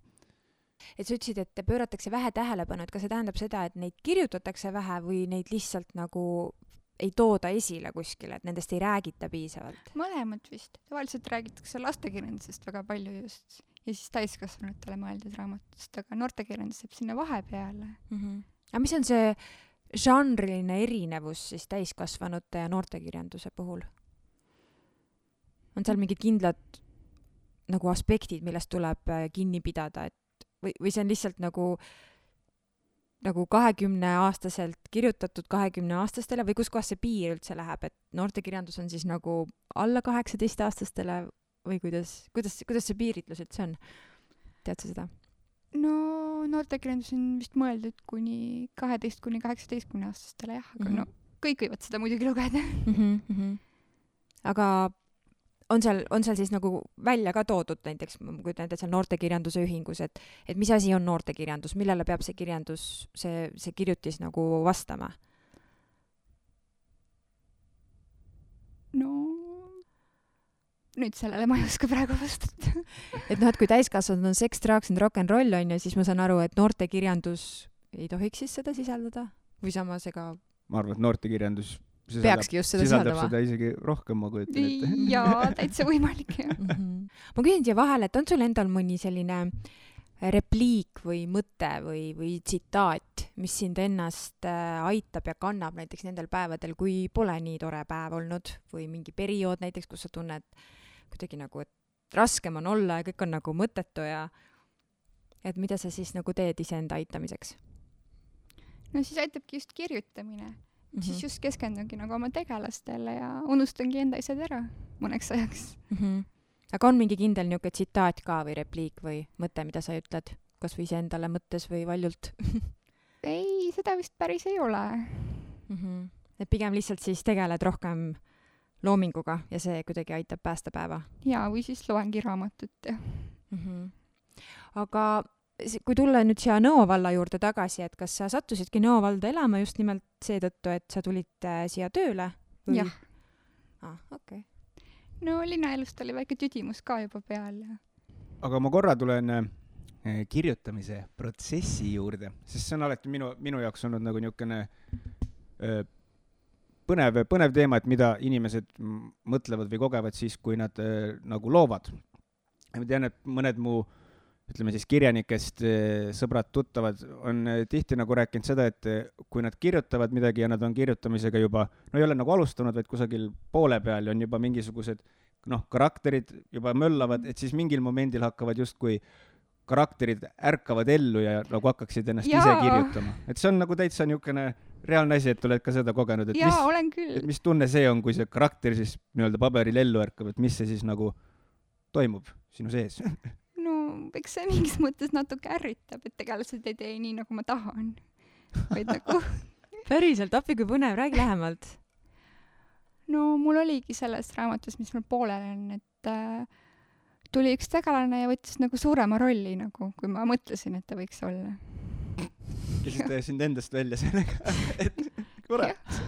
Et sa ütlesid, et pööratakse vähe tähelepanu, et kas see tähendab seda, et neid kirjutatakse vähe või neid lihtsalt nagu ei tooda esile kuskile, et nendest ei räägita piisavalt? Mõlemad vist. Tavaliselt räägitakse lastekirjandusest väga palju just. Ja siis täiskasvanutele mõeldud raamatust, aga noortekirjandus jääb sinna vahepeale. Aga mis on see žanriline erinevus siis täiskasvanute ja noortekirjanduse puhul? On seal mingid kindlad nagu aspektid, millest tuleb kinni pidada, et või see on lihtsalt nagu 20-aastaselt kirjutatud 20-aastastele või kus kohas see piir üldse läheb, et noortekirjandus on siis nagu alla 18-aastastele või kuidas see piiritlus üldse on? Tead sa seda? No noortekirjandus on vist mõeldud kuni 12-18-aastastele, jah, aga kõik võivad seda muidugi lugeda. Aga on seal siis nagu välja ka toodud näiteks, kui näiteks seal noortekirjanduse ühingus, et mis asi on noortekirjandus, millele peab see kirjandus, see kirjutis nagu vastama? No, nüüd sellele ma ei oska praegu vastata. Et kui täiskasvanud on seks, drugs and rock and roll on ja siis ma saan aru, et noortekirjandus ei tohiks siis seda sisaldada? Või samas ega... Ma arvan, et noortekirjandus peakski just seda sisaldama. Seda isegi rohkem, ma kujutan ette. Jaa, täitsa võimalik, jah. Ma küsin siia vahele, et on sul endal mõni selline repliik või mõte või tsitaat, mis sind ennast aitab ja kannab näiteks nendel päevadel, kui pole nii tore päev olnud või mingi periood näiteks, kus sa tunned kuidagi nagu, et raskem on olla ja kõik on nagu mõttetu ja et mida sa siis nagu teed iseenda aitamiseks? No siis aitabki just kirjutamine. Siis just keskendungi nagu oma tegelastele ja unustangi enda asjad ära mõneks ajaks. Aga on mingi kindel niisugune tsitaat ka või repliik või mõte, mida sa ütled? Kas või iseendale mõttes või valjult? Ei, seda vist päris ei ole. Et pigem lihtsalt siis tegeled rohkem loominguga ja see kuidagi aitab päästa päeva? Jaa, või siis loengi raamatut. Aga kui tulla nüüd siia Nõo valla juurde tagasi, et kas sa sattusidki Nõo valda elama just nimelt seetõttu, et sa tulid siia tööle? Või? Jah. Okay. No linnaelust oli väike tüdimus ka juba peal. Aga ma korra tulen kirjutamise protsessi juurde, sest see on alati minu jaoks olnud nagu niisugune põnev teema, et mida inimesed mõtlevad või kogevad siis, kui nad nagu loovad. Ma tean, et mõned mu ütleme siis kirjanikest sõbrad, tuttavad on tihti nagu rääkinud seda, et kui nad kirjutavad midagi ja nad on kirjutamisega juba, no ei ole nagu alustanud, vaid kusagil poole peal on juba mingisugused karakterid juba möllavad, et siis mingil momendil hakkavad justkui karakterid ärkavad ellu ja nagu hakkaksid ennast ise kirjutama. Et see on nagu täitsa niisugune reaalne asi, et oled ka seda kogenud, et olen küll. Mis tunne see on, kui see karakter siis nii-öelda paberil ellu ärkab, et mis see siis nagu toimub sinu sees? Eks see mingis mõttes natuke ärritab, et tegelased ei tee nii, nagu ma tahan. Vaid nagu... Päriselt, appi kui põnev, räägi lähemalt. No mul oligi selles raamatus, mis mul poolel on, et tuli üks tegelane ja võttis nagu suurema rolli, nagu, kui ma mõtlesin, et ta võiks olla. Kes sind endast välja sellega, et kurat.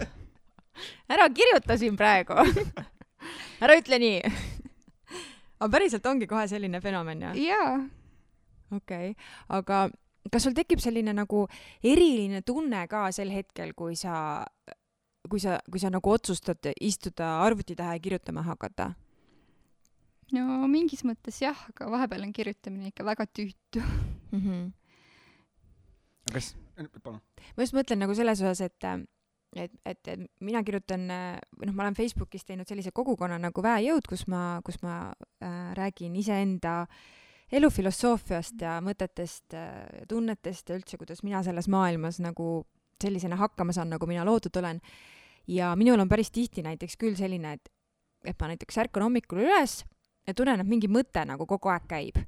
ära kirjuta siin praegu. Ära ütle nii. Aga päriselt ongi kohe selline fenomen, jah? jaa. Okei. Aga kas sul tekib selline nagu eriline tunne ka sel hetkel, kui sa nagu otsustad istuda arvuti taha ja kirjutama hakata? No mingis mõttes jah, aga vahepeal on kirjutamine ikka väga tüütu. aga kas, palun. Ma just mõtlen nagu selles osas, et mina kirjutan, ma olen Facebookis teinud sellise kogukonna nagu Väejõud, kus ma räägin iseenda elufilosoofiast ja mõtetest, tunnetest ja üldse, kuidas mina selles maailmas nagu sellisena hakkama saan, nagu mina loodud olen. Ja minul on päris tihti näiteks küll selline, et ma näiteks ärkan hommikul üles ja tunnen, et mingi mõte nagu kogu aeg käib.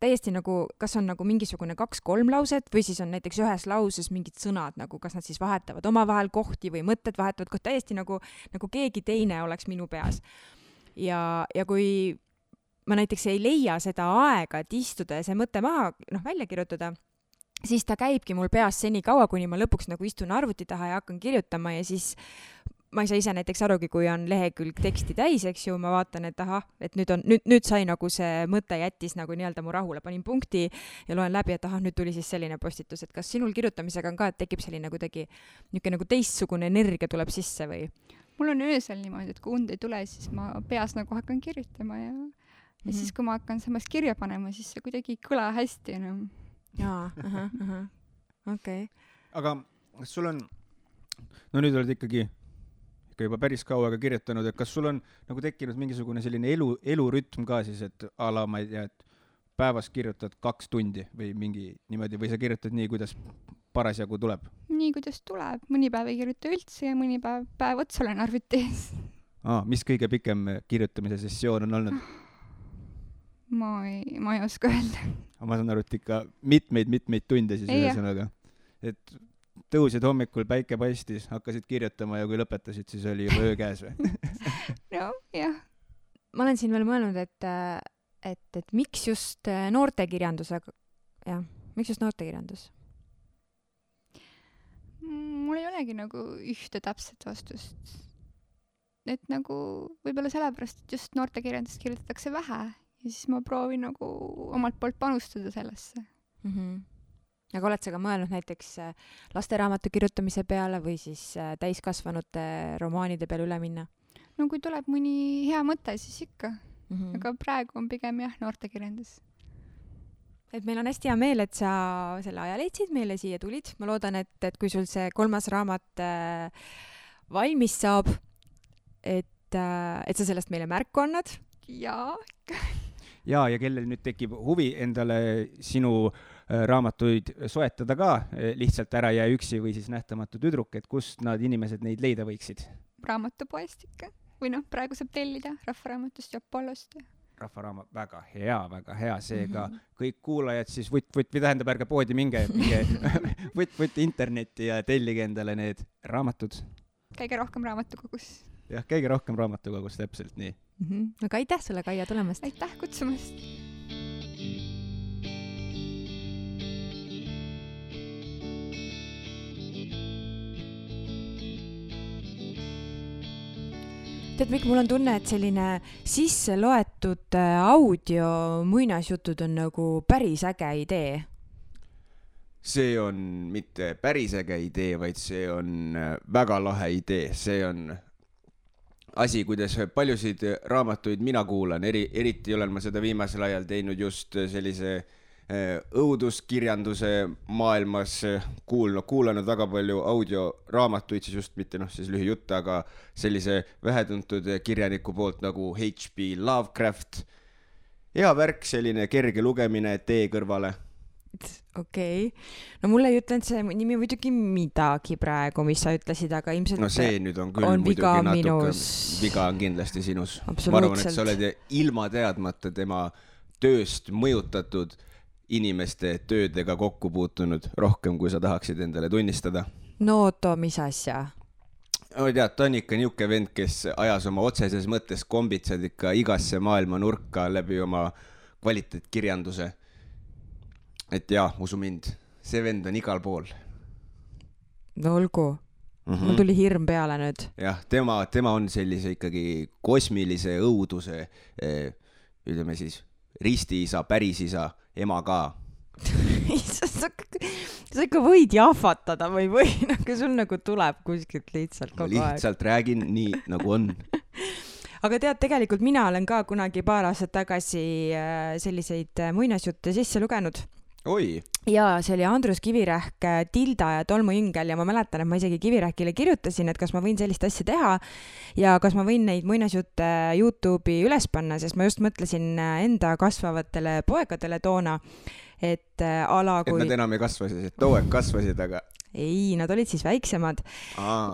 Täiesti nagu, kas on nagu mingisugune 2-3 lauset või siis on näiteks ühes lauses mingid sõnad, nagu kas nad siis vahetavad omavahel kohti või mõtted vahetavad kohti, täiesti nagu keegi teine oleks minu peas. Ja kui ma näiteks ei leia seda aega, et istuda ja see mõte maha välja kirjutada, siis ta käibki mul peas seni kaua, kuni ma lõpuks nagu istun arvuti taha ja hakkan kirjutama ja siis ma ei saa ise näiteks arugi, kui on lehekülg teksti täis, eks ju, ma vaatan, et ahah, et nüüd sai nagu see mõte jättis nagu nii-öelda mu rahule, panin punkti ja loen läbi, et ahah, nüüd tuli siis selline postitus, et kas sinul kirjutamisega on ka, et tekib selline kuidagi niisugune nagu teistsugune energia tuleb sisse või? Mul on öösel niimoodi, et kui und ei tule, siis ma peas nagu hakkan kirjutama ja siis, kui ma hakkan samas kirja panema, siis see kuidagi ei kõla hästi enam. Jaa, okei. Aga kas sul on, no nüüd oled ikkagi juba päris kaua kirjutanud, et kas sul on nagu tekkinud mingisugune selline elurütm ka siis, et ala, ma ei tea, et päevas kirjutad 2 tundi või mingi niimoodi, või sa kirjutad nii, kuidas parasjagu tuleb? Nii, kuidas tuleb. Mõni päev ei kirjuta üldse ja mõni päev otsa olen arvuti ees. Mis kõige pikem kirjutamise sessioon on olnud? Ma ei oska öelda. Ma saan aru, et ikka mitmeid tunde siis ühesõnaga. Et tõusid hommikul, päike paistis, hakkasid kirjutama ja kui lõpetasid, siis oli juba öö käes või? No, jah. Ma olen siin veel mõelnud, et miks just noortekirjandusega, jah, miks just noortekirjandus? Mul ei olegi nagu ühte täpset vastust. Et nagu võib-olla sellepärast, et just noortekirjandust kirjutatakse vähe ja siis ma proovin nagu omalt poolt panustada sellesse. Aga oled sa ka mõelnud näiteks lasteraamatu kirjutamise peale või siis täiskasvanute romaanide peale üle minna? No kui tuleb mõni hea mõte, siis ikka. Aga praegu on pigem jah, noortekirjandus. Et meil on hästi hea meel, et sa selle aja leidsid, meile siia tulid. Ma loodan, et kui sul see 3. raamat valmis saab, et sa sellest meile märku annad. Jaa. Ja kellel nüüd tekib huvi endale sinu raamatuid soetada ka, lihtsalt Ära jää üksi või siis Nähtamatu tüdruk, et kust nad inimesed neid leida võiksid? Raamatupoest ikka. Või praegu saab tellida Rahvaraamatust ja Apollost. Rahvaraamat, väga hea, seega kõik kuulajad siis või tähendab, ärge poodi minge võtt internetti ja tellige endale need raamatud. Käige rohkem raamatukogus. Jah, käige rohkem raamatukogus, täpselt nii. Aga aitäh sulle, Kaia, tulemast. Aitäh kutsumast. Tead, Mikk, mul on tunne, et selline sisse loetud audio muinasjutud on nagu päris äge idee. See on mitte päris äge idee, vaid see on väga lahe idee. See on asi, kuidas paljusid raamatuid mina kuulan. Eriti olen ma seda viimasel ajal teinud just sellise õuduskirjanduse maailmas, kuulanud väga palju audioraamatuid, siis just mitte siis lühijutte, aga sellise vähetuntud kirjaniku poolt nagu H.P. Lovecraft. Hea värk, selline kerge lugemine tee kõrvale. Okei. No mulle ei ütlenud see nimi muidugi midagi praegu, mis sa ütlesid, aga ilmselt no see nüüd on küll on muidugi viga natuke minus. Viga on kindlasti sinus. Absoluutselt. Ma arvan, et sa oled ilma teadmata tema tööst mõjutatud inimeste töödega kokku puutunud rohkem, kui sa tahaksid endale tunnistada. No too, mis asja? Tead, ta on ikka niuke vend, kes ajas oma otseses mõttes kombitsad ikka igasse maailma nurka läbi oma kvaliteetkirjanduse. Et jaa, usu mind, see vend on igal pool. No olgu. Mul tuli hirm peale nüüd. Jah, tema on sellise ikkagi kosmilise õuduse, ütleme siis, ristiisa, pärisisa, ema ka. Sa ikka võid jahvatada või nagu sul nagu tuleb kuskilt lihtsalt kogu aeg. Ma lihtsalt räägin nii, nagu on. Aga tead, tegelikult mina olen ka kunagi paar aastat tagasi selliseid muinasjutte sisse lugenud. Oi. Ja see oli Andrus Kivirähk, Tilda ja Tolmujüngel ja ma mäletan, et ma isegi Kivirähkile kirjutasin, et kas ma võin sellist asja teha ja kas ma võin neid muinasjutte YouTube'i üles panna, sest ma just mõtlesin enda kasvavatele poegadele toona, et ala kui... Et nad enam ei kasvasid, et too aeg kasvasid, aga... Ei, nad olid siis väiksemad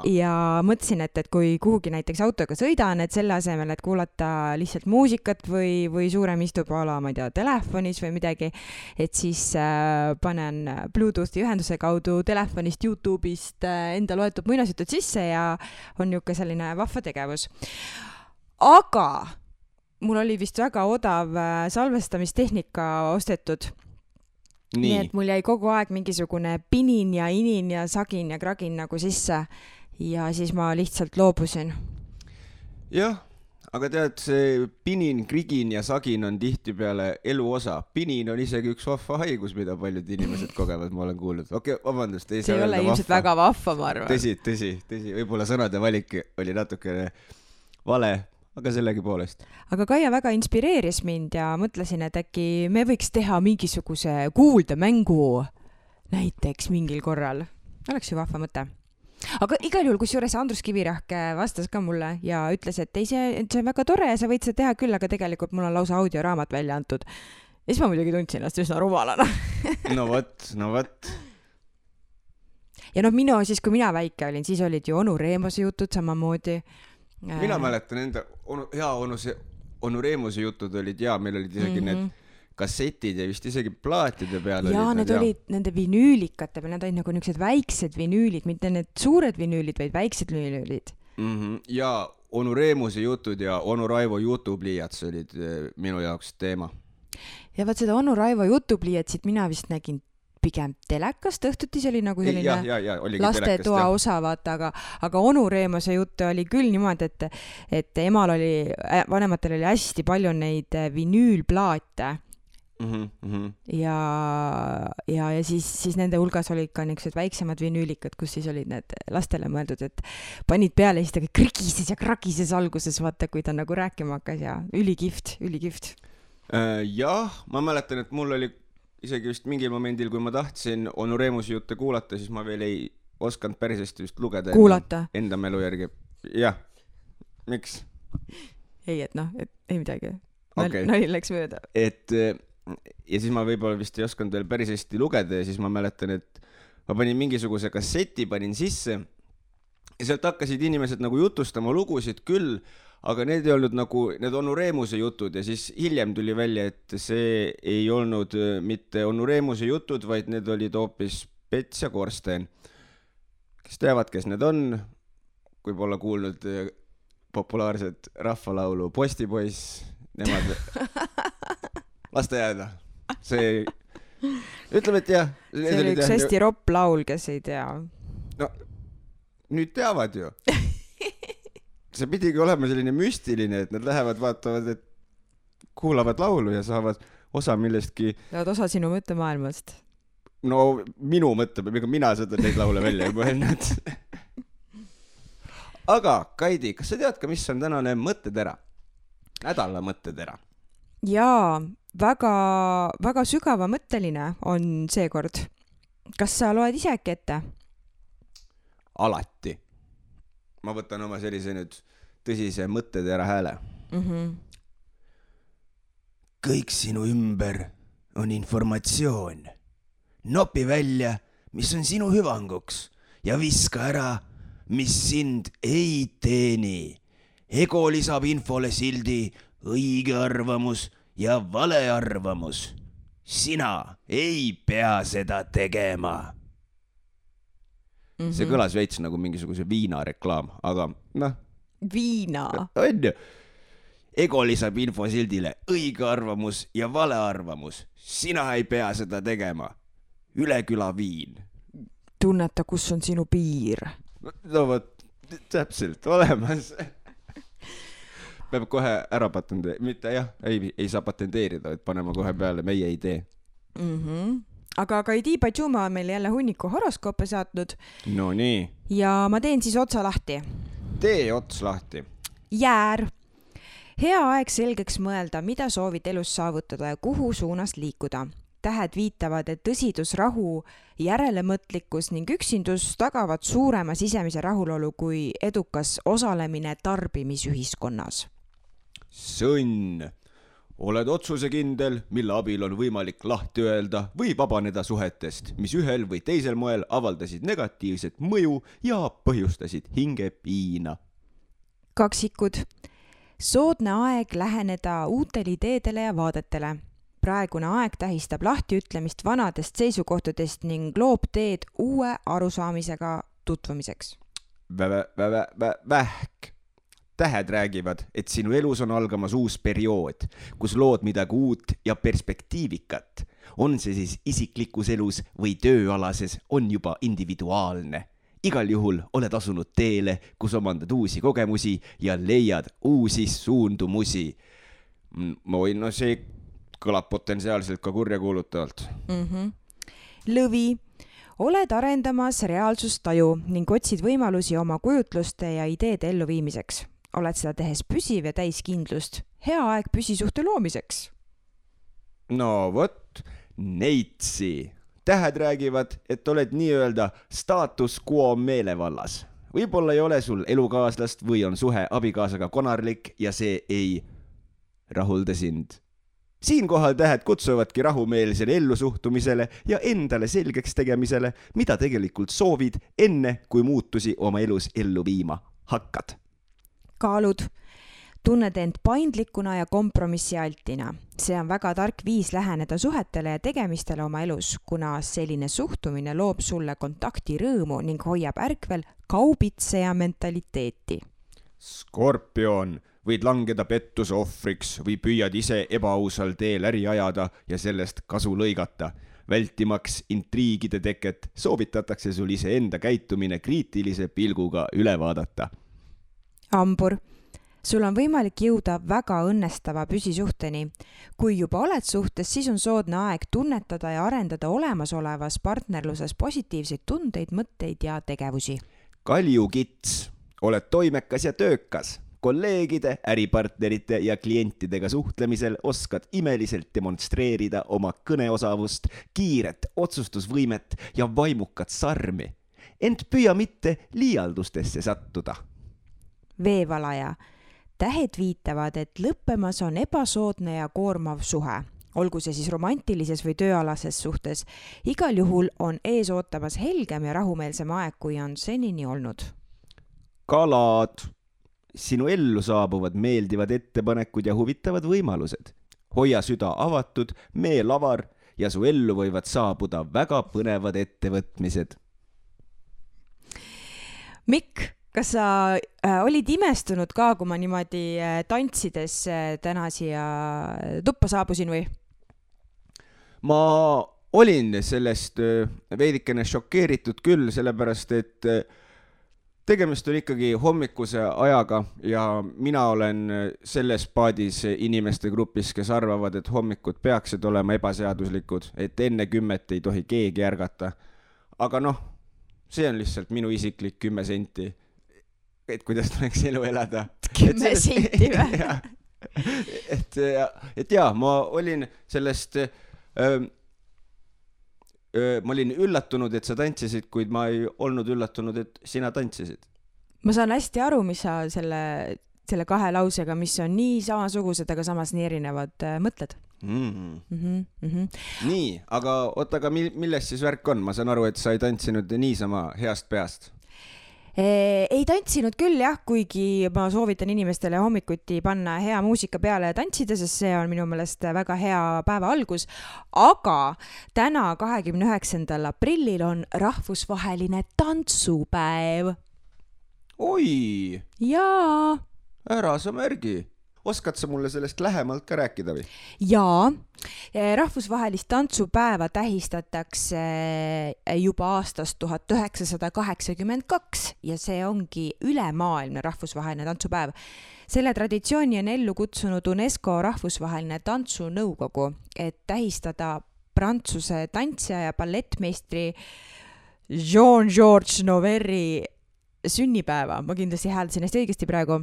ja mõtlesin, et kui kuhugi näiteks autoga sõidan, et selle asemel, et kuulata lihtsalt muusikat või suurem istub ala, ma ei tea, telefonis või midagi, et siis panen Bluetoothi ühenduse kaudu telefonist, YouTube'ist enda loetud muinasjutud sisse ja on niisugune selline vahva tegevus. Aga mul oli vist väga odav salvestamistehnika ostetud. Nii et mul jäi kogu aeg mingisugune pinin ja inin ja sagin ja kragin nagu sisse ja siis ma lihtsalt loobusin. Jah, aga tead, see pinin, krigin ja sagin on tihtipeale elu osa. Pinin on isegi üks vahva haigus, mida paljud inimesed kogevad, ma olen kuulnud. Okei, vabandust, ei see ei ole ilmselt väga vahva, ma arvan. Tõsi. Võib-olla sõnade valik oli natukene vale. Aga sellegi poolest. Aga Kaia väga inspireeris mind ja mõtlesin, et äkki me võiks teha mingisuguse kuuldemängu näiteks mingil korral. Oleks ju vahva mõte. Aga igal juhul, kusjuures Andrus Kivirähk vastas ka mulle ja ütles, et ei, see on väga tore ja sa võid seda teha küll, aga tegelikult mul on lausa audioraamat välja antud. Ja siis ma muidugi tundsin ennast üsna rumalana. No võt. Ja siis, kui mina väike olin, siis olid ju Onu Reemose jutud samamoodi. Mina mäletan enda Onu Reemuse jutud olid meil olid isegi need kassetid ja vist isegi plaatide peal olid nende vinüülikate peal, need olid nagu niisugused väiksed vinüülid, mitte need suured vinüülid, vaid väiksed vinüülid. Ja Onu Reemuse jutud ja Onu Raivo jutupliiats olid minu jaoks teema. Ja vaat seda Onu Raivo jutupliiatsit mina vist nägin pigem telekast, õhtuti see oli nagu selline lastetoa osa, vaata, aga Onu Reemose juttu oli küll niimoodi, et vanematel oli hästi palju neid vinüülplaate ja siis nende hulgas olid ka niisugused väiksemad vinüülikad, kus siis olid need lastele mõeldud, et panid peale ja siis ta krigises ja kragises alguses, vaata, kui ta nagu rääkima hakkas ja ülikihvt. Jah, ma mäletan, et mul oli isegi vist mingil momendil, kui ma tahtsin Onu Reemuse jutte kuulata, siis ma veel ei osanud päris hästi vist lugeda enda mälu järgi. Jah, miks? Ei, ei midagi. Nali läks mööda. Ja siis ma võib-olla vist ei osanud veel päris hästi lugeda ja siis ma mäletan, et ma panin mingisuguse kasseti, panin sisse ja sealt hakkasid inimesed nagu jutustama lugusid küll, aga need ei olnud nagu need Onu Reemuse jutud ja siis hiljem tuli välja, et see ei olnud mitte Onu Reemuse jutud, vaid need olid hoopis Pets ja Korsten. Kes teavad, kes need on, kui pole kuulnud populaarset rahvalaulu Postipoiss, nemad lasta jääda. See ütleme, et jah. See oli üks hästi ropp laul, kes ei tea. No, nüüd teavad ju. See pidigi olema selline müstiline, et nad lähevad, vaatavad, et kuulavad laulu ja saavad osa millestki. Saavad osa sinu mõttemaailmast. No minu mõttemaailmast, mina seda neid laule välja ei mõelnud. Aga Kaidi, kas sa tead ka, mis on tänane mõttetera? Nädala mõttetera. Jaa, väga sügava mõtteline on seekord. Kas sa loed ise äkki ette? Alati. Ma võtan oma sellise nüüd tõsise mõttetera hääle. Kõik sinu ümber on informatsioon. Nopi välja, mis on sinu hüvanguks ja viska ära, mis sind ei teeni. Ego lisab infole sildi õige arvamus ja vale arvamus. Sina ei pea seda tegema. See kõlas veits nagu mingisuguse viinareklaam, aga Viina. On ju. Ego lisab infosildile õige arvamus ja vale arvamus. Sina ei pea seda tegema. Üle küla viin. Tunneta, kus on sinu piir. no vot, täpselt olemas. Peab kohe ära patenteerida, mitte jah, ei saa patenteerida, et panema kohe peale meie idee. Aga Kaidi Pajuma on meil jälle hunniku horoskoope saatnud. No nii. Ja ma teen siis otsa lahti. Tee ots lahti. Jäär. Hea aeg selgeks mõelda, mida soovid elus saavutada ja kuhu suunas liikuda. Tähed viitavad, et tõsidus, rahu, järelemõtlikkus ning üksindus tagavad suurema sisemise rahulolu kui edukas osalemine tarbimisühiskonnas. Sõnn. Oled otsusekindel, mille abil on võimalik lahti öelda või vabaneda suhetest, mis ühel või teisel moel avaldasid negatiivset mõju ja põhjustasid hingepiina. Kaksikud. Soodne aeg läheneda uutele ideedele ja vaadetele. Praegune aeg tähistab lahtiütlemist vanadest seisukohtadest ning loob teed uue arusaamisega tutvumiseks. Vähk. Tähed räägivad, et sinu elus on algamas uus periood, kus lood midagi uut ja perspektiivikat. On see siis isiklikus elus või tööalases, on juba individuaalne. Igal juhul oled asunud teele, kus omandad uusi kogemusi ja leiad uusi suundumusi. No see kõlab potentsiaalselt ka kurjakuulutavalt. Lõvi. Oled arendamas reaalsustaju ning otsid võimalusi oma kujutluste ja ideede elluviimiseks. Oled seda tehes püsiv ja täiskindlust. Hea aeg püsisuhte loomiseks. No vot, Neitsi. Tähed räägivad, et oled nii-öelda status quo meelevallas. Võib-olla ei ole sul elukaaslast või on suhe abikaasaga konarlik ja see ei rahulda sind. Siinkohal tähed kutsuvadki rahumeelsele ellusuhtumisele ja endale selgeks tegemisele, mida tegelikult soovid enne, kui muutusi oma elus ellu viima hakkad. Kaalud. Tunned end paindlikuna ja kompromissialtina. See on väga tark viis läheneda suhetele ja tegemistele oma elus, kuna selline suhtumine loob sulle kontakti rõõmu ning hoiab ärkvel kaubitseja mentaliteeti. Skorpion. Võid langeda pettuse ohvriks või püüad ise ebaausal teel äri ajada ja sellest kasu lõigata. Vältimaks intriigide teket soovitatakse sul iseenda käitumine kriitilise pilguga üle vaadata. Hambur. Sul on võimalik jõuda väga õnnestava püsisuhteni. Kui juba oled suhtes, siis on soodne aeg tunnetada ja arendada olemasolevas partnerluses positiivseid tundeid, mõtteid ja tegevusi. Kaljukits. Oled toimekas ja töökas. Kolleegide, äripartnerite ja klientidega suhtlemisel oskad imeliselt demonstreerida oma kõneosavust, kiiret otsustusvõimet ja vaimukat sarmi. Ent püüa mitte liialdustesse sattuda. Veevalaja. Tähed viitavad, et lõppemas on ebasoodne ja koormav suhe. Olgu see siis romantilises või tööalases suhtes. Igal juhul on ees ootamas helgem ja rahumeelsem aeg, kui on senini olnud. Kalad. Sinu ellu saabuvad meeldivad ettepanekud ja huvitavad võimalused. Hoia süda avatud, meel avar ja su ellu võivad saabuda väga põnevad ettevõtmised. Mikk, kas sa olid imestunud ka, kui ma niimoodi tantsides täna siia tuppa saabusin või? Ma olin sellest veidikene šokeeritud küll, sellepärast et tegemist on ikkagi hommikuse ajaga ja mina olen selles paadis inimeste grupis, kes arvavad, et hommikud peaksid olema ebaseaduslikud, et enne 10 ei tohi keegi ärgata. Aga see on lihtsalt minu isiklik 10 senti, et kuidas tuleks elu elada. 10 senti või? Et jaa, ma olin sellest... Ma olin üllatunud, et sa tantsisid, kuid ma ei olnud üllatunud, et sina tantsisid. Ma saan hästi aru, mis sa selle 2 lausega, mis on nii samasugused, aga samas nii erinevad, mõtled. Nii, aga milles siis värk on? Ma saan aru, et sa ei tantsinud niisama heast peast. Ei tantsinud küll jah, kuigi ma soovitan inimestele hommikuti panna hea muusika peale ja tantsida, sest see on minu meelest väga hea päeva algus. Aga täna 29. aprillil on rahvusvaheline tantsupäev. Oi! Jaa! Ära sa märgi. oskad sa mulle sellest lähemalt ka rääkida või? Jaa, rahvusvahelist tantsupäeva tähistatakse juba aastast 1982 ja see ongi ülemaailmne rahvusvaheline tantsupäev. Selle traditsiooni on ellu kutsunud UNESCO rahvusvaheline tantsunõukogu, et tähistada Prantsuse tantsija ja ballettmeistri Jean-Georges Noverri sünnipäeva. Ma kindlasti hääldasin hästi õigesti praegu.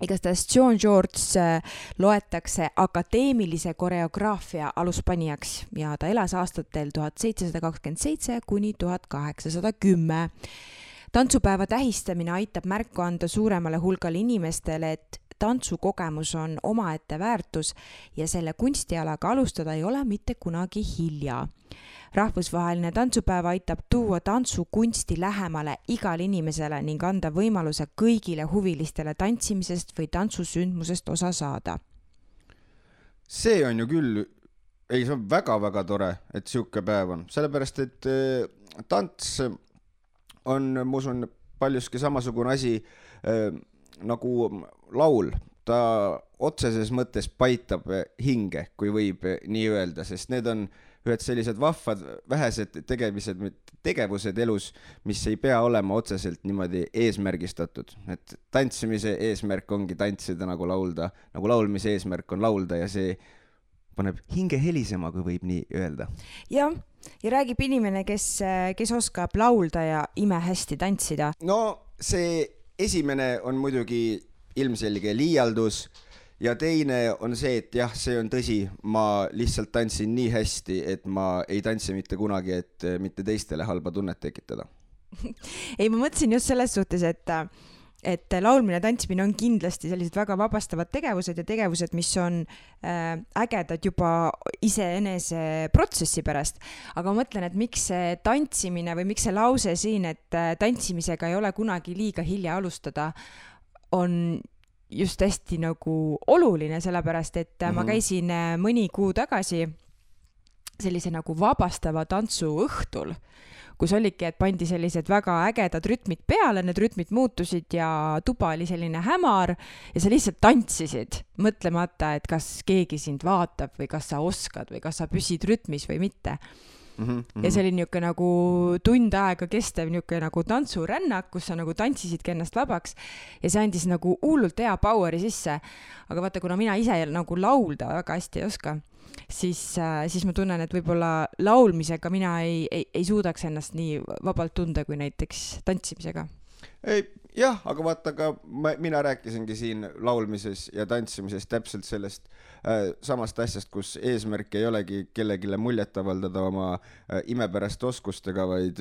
Igastahes Jean-Georges loetakse akadeemilise koreograafia aluspanijaks ja ta elas aastatel 1727 kuni 1810. Tantsupäeva tähistamine aitab märku anda suuremale hulgale inimestele, et tantsukogemus on omaette väärtus ja selle kunstialaga alustada ei ole mitte kunagi hilja. Rahvusvaheline tantsupäev aitab tuua tantsukunsti lähemale igale inimesele ning anda võimaluse kõigile huvilistele tantsimisest või tantsusündmusest osa saada. See on ju küll, see on väga-väga tore, et siuke päev on. Sellepärast, et tants on, ma usun, paljuski samasugune asi nagu laul. Ta otseses mõttes paitab hinge, kui võib nii öelda, sest need on ühed sellised vahvad vähesed tegevused elus, mis ei pea olema otseselt niimoodi eesmärgistatud. Et tantsimise eesmärk ongi tantsida nagu laulda, nagu laulmise eesmärk on laulda ja see paneb hinge helisema, kui võib nii öelda. Ja räägib inimene, kes oskab laulda ja imehästi tantsida. No see esimene on muidugi ilmselge liialdus ja teine on see, et jah, see on tõsi, ma lihtsalt tantsin nii hästi, et ma ei tantsi mitte kunagi, et mitte teistele halba tunnet tekitada. Ei, ma mõtlesin just selles suhtes, et laulmine ja tantsimine on kindlasti sellised väga vabastavad tegevused ja tegevused, mis on ägedad juba iseenese protsessi pärast. Aga ma mõtlen, et miks see tantsimine või miks see lause siin, et tantsimisega ei ole kunagi liiga hilja alustada, on just hästi nagu oluline, sellepärast, et ma käisin mõni kuu tagasi sellise nagu vabastava tantsu õhtul, kus oligi, et pandi sellised väga ägedad rütmid peale, need rütmid muutusid ja tuba oli selline hämar ja sa lihtsalt tantsisid, mõtlemata, et kas keegi sind vaatab või kas sa oskad või kas sa püsid rütmis või mitte. Ja see oli niisugune nagu tund aega kestev niisugune nagu tantsurännak, kus sa nagu tantsisidki ennast vabaks ja see andis nagu hullult hea poweri sisse. Aga vaata, kuna mina ise nagu laulda väga hästi ei oska, siis ma tunnen, et võib-olla laulmisega mina ei suudaks ennast nii vabalt tunda kui näiteks tantsimisega. Jah, aga vaata ka mina rääkisingi siin laulmises ja tantsimises täpselt sellest samast asjast, kus eesmärk ei olegi kellegile muljet avaldada oma imepärast oskustega, vaid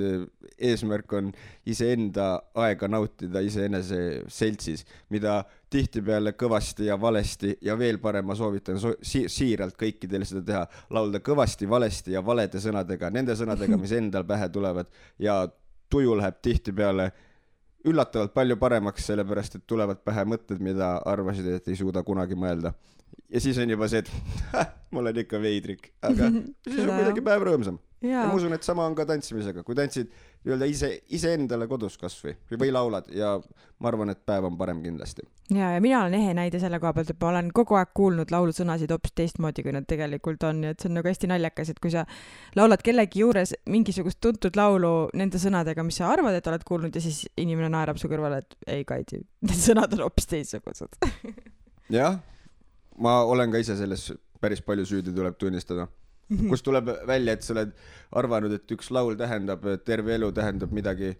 eesmärk on iseenda aega nautida iseenese seltsis, mida tihtipeale kõvasti ja valesti ja veel parem ma soovitan siiralt kõikidele seda teha, laulda kõvasti, valesti ja valede sõnadega, nende sõnadega, mis endal pähe tulevad ja tuju läheb tihtipeale üllatavalt palju paremaks, sellepärast, et tulevad pähe mõtted, mida arvasid, et ei suuda kunagi mõelda. Ja siis on juba see, et mul on ikka veidrik, aga siis on midagi päev rõõmsam. Ja ma usun, et sama on ka tantsimisega. Kui tantsid iseendale kodus kasvõi või laulad ja ma arvan, et päev on parem kindlasti. Ja mina olen ehe näide selle koha pealt, et ma olen kogu aeg kuulnud laulusõnasid hoopis teistmoodi, kui nad tegelikult on. Ja et see on nagu hästi naljakas, et kui sa laulad kellegi juures mingisugust tuntud laulu nende sõnadega, mis sa arvad, et oled kuulnud ja siis inimene naerab su kõrvale, et ei Kaidi, need sõnad on hoopis teistsugused. Jah, ma olen ka ise selles päris palju süüdi, tuleb tunnistada. Kus tuleb välja, et sa oled arvanud, et üks laul tähendab, terve elu tähendab midagi,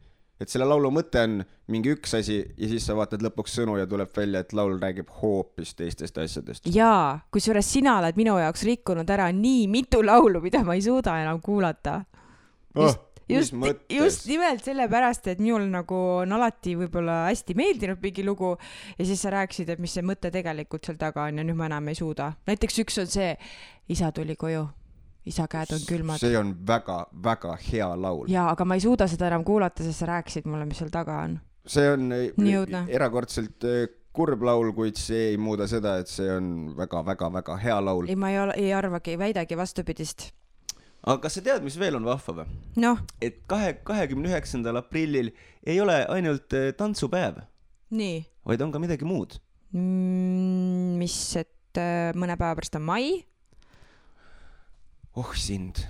et selle laulu mõte on mingi üks asi ja siis sa vaatad lõpuks sõnu ja tuleb välja, et laul räägib hoopis teistest asjadest. Jaa, kusjuures sina oled minu jaoks rikkunud ära nii mitu laulu, mida ma ei suuda enam kuulata. Just nimelt sellepärast, et minul nagu on alati võib-olla hästi meeldinud mingi lugu ja siis sa rääkisid, et mis see mõte tegelikult seal taga on ja nüüd ma enam ei suuda. Näiteks üks on see, isa tuli koju. Isa käed on külmad. See on väga, väga hea laul. Jaa, aga ma ei suuda seda enam kuulata, sest sa rääkisid mulle, mis seal taga on. See on erakordselt kurb laul, kuid see ei muuda seda, et see on väga, väga, väga hea laul. Ei, ma ei arvagi, väidagi vastupidist. Aga kas sa tead, mis veel on vahva või? No. Et 29. aprillil ei ole ainult tantsupäev. Nii. Vaid on ka midagi muud. mis, et mõne päeva pärast on mai. Oh sind.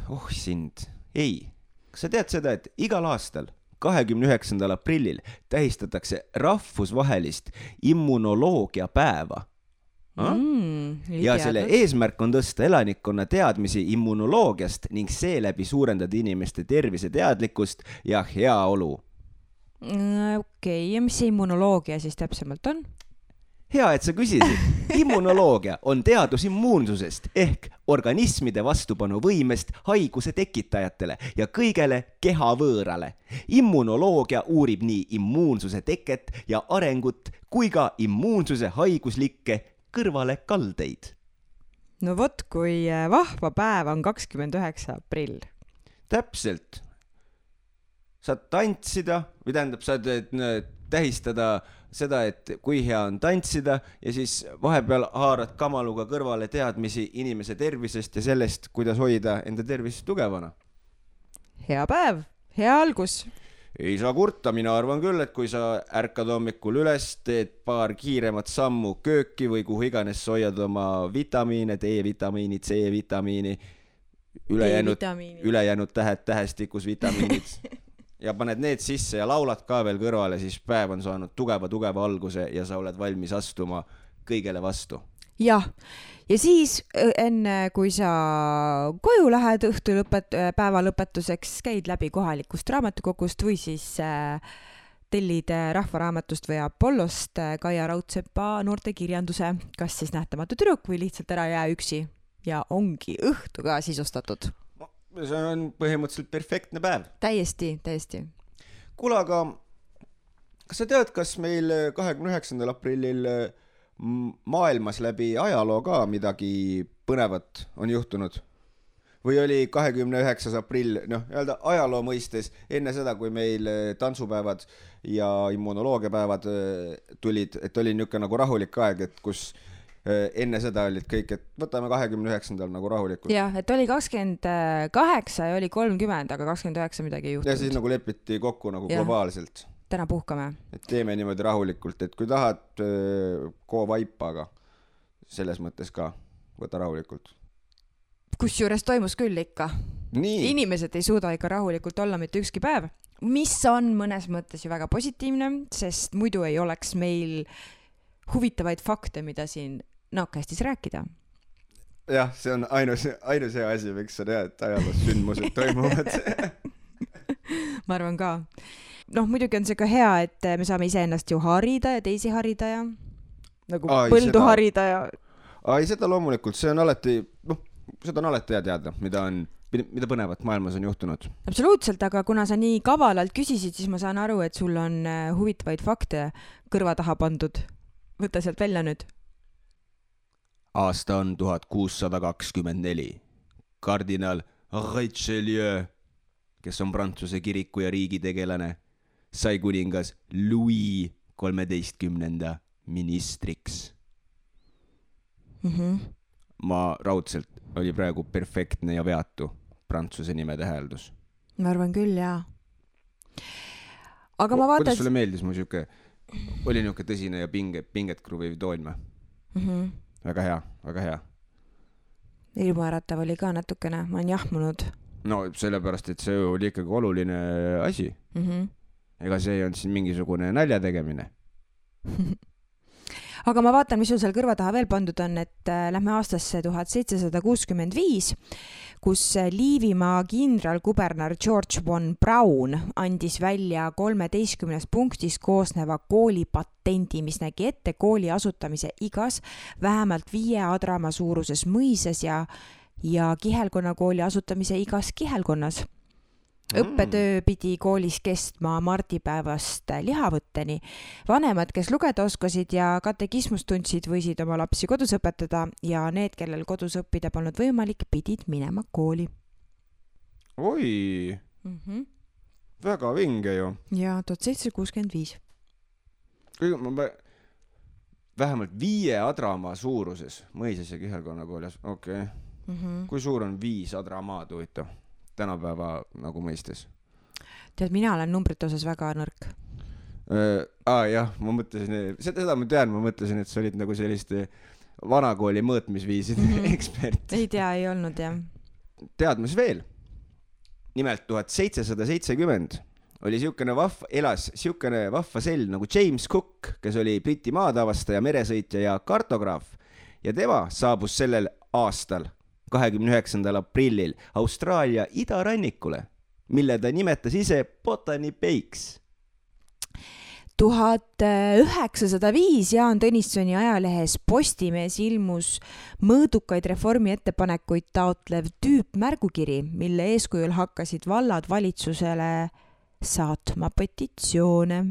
Ei, kas sa tead seda, et igal aastal 29. aprillil tähistatakse rahvusvahelist immunoloogia päeva? Ja selle eesmärk on tõsta elanikkonna teadmisi immunoloogiast ning seeläbi suurendada inimeste tervise teadlikkust ja heaolu. Okei, ja mis see immunoloogia siis täpsemalt on? Hea, et sa küsisid. Immunoloogia on teadus immuunsusest ehk organismide vastupanuvõimest haiguse tekitajatele ja kõigele kehavõõrale. Immunoloogia uurib nii immuunsuse teket ja arengut kui ka immuunsuse haiguslikke kõrvalekaldeid. No vot, kui vahva päev on 29. aprill. Täpselt. Saad tantsida, või tähendab, saad tähistada seda, et kui hea on tantsida ja siis vahepeal haarad kamaluga kõrvale teadmisi inimese tervisest ja sellest, kuidas hoida enda tervist tugevana. Hea päev, hea algus. Ei saa kurta, mina arvan küll, et kui sa ärkad hommikul üles, teed paar kiiremat sammu kööki või kuhu iganes hoiad oma vitamiine, D-vitamiini, C-vitamiini, ülejäänud tähestikus vitamiinid ja paned need sisse ja laulad ka veel kõrvale, siis päev on saanud tugeva alguse ja sa oled valmis astuma kõigele vastu. Jah, ja siis enne kui sa koju lähed päeva lõpetuseks, käid läbi kohalikust raamatukogust või siis tellid Rahvaraamatust või Apollost Kaia Raudsepa noortekirjanduse, kas siis Nähtamatu tüdruk või lihtsalt Ära jää üksi ja ongi õhtu ka sisustatud. See on põhimõtteliselt perfektne päev. Täiesti. Kuule, aga kas sa tead, kas meil 29. aprillil maailmas läbi ajaloo ka midagi põnevat on juhtunud? Või oli 29. aprill, öelda ajaloo mõistes enne seda, kui meil tantsupäevad ja immunoloogiapäevad tulid, et oli niisugune nagu rahulik aeg, et kus enne seda olid kõik, et võtame 29. nagu rahulikult. Jah, et oli 28 ja oli 30, aga 29 midagi ei juhtunud. Ja siis nagu lepiti kokku nagu globaalselt. Täna puhkame. Et teeme niimoodi rahulikult, et kui tahad, koo vaipa, aga selles mõttes ka võta rahulikult. Kusjuures toimus küll ikka. Nii. Inimesed ei suuda ikka rahulikult olla mitte ükski päev, mis on mõnes mõttes ju väga positiivne, sest muidu ei oleks meil huvitavaid fakte, mida siin Naakastis rääkida. Jah, see on ainus hea asi, miks sa tead, et ajaloos sündmused toimuvad. Ma arvan ka. Muidugi on see ka hea, et me saame iseennast ju harida ja teisi harida ja nagu põldu harida ja... Ai, seda loomulikult, see on alati, seda on alati hea teada, mida põnevat maailmas on juhtunud. Absoluutselt, aga kuna sa nii kavalalt küsisid, siis ma saan aru, et sul on huvitavaid fakte kõrva taha pandud. Võta sealt välja nüüd. Aasta on 1624. Kardinal Richelieu, kes on Prantsuse kiriku ja riigi tegelane, sai kuningas Louis 13. ministriks. Ma raudselt oli praegu perfektne ja veatu Prantsuse nime täheldus. Ma arvan küll, jaa. Aga ma vaatan... Kuidas sulle meeldis mu siuke, oli niuke tõsine ja pinget kruviv toon või? Väga hea. Ilmaäratav oli ka natukene, ma olen jahmunud. No sellepärast, et see oli ikkagi oluline asi. Ega see ei olnud siin mingisugune nalja tegemine. Aga ma vaatan, mis sul seal kõrva taha veel pandud on, et lähme aastasse 1765, kus Liivimaa kindralkuberner George von Braun andis välja 13 punktis koosneva koolipatendi, mis nägi ette kooli asutamise igas vähemalt 5 adrama suuruses mõises ja kihelkonnakooli asutamise igas kihelkonnas. Õppetöö pidi koolis kestma mardipäevast lihavõtteni. Vanemad, kes lugeda oskasid ja katekismust tundsid, võisid oma lapsi kodus õpetada ja need, kellel kodus õppida polnud võimalik, pidid minema kooli. Oi, väga vinge ju. Ja 1765. Vähemalt 5 adramaa suuruses mõises ja kihelkonnakoolis. Okei. Kui suur on 5 adramaad, huvitav? Tänapäeva nagu mõistes. Tead, mina olen numbrite osas väga nõrk. Jah, ma mõtlesin, seda ma tean, ma mõtlesin, et sa olid nagu selliste vanakooli mõõtmisviiside ekspert. ei tea, ei olnud jah. Tead, mis veel? Nimelt 1770 oli elas siukene vahva sell nagu James Cook, kes oli Briti maatavastaja, meresõitja ja kartograaf. Ja tema saabus sellel aastal 29. aprillil Austraalia idarannikule, mille ta nimetas ise Botany Bay'ks. 1905 Jaan Tõnissoni ajalehes Postimees ilmus mõõdukaid reformi ettepanekuid taotlev tüüpmärgukiri, mille eeskujul hakkasid vallad valitsusele saatma petitsioone.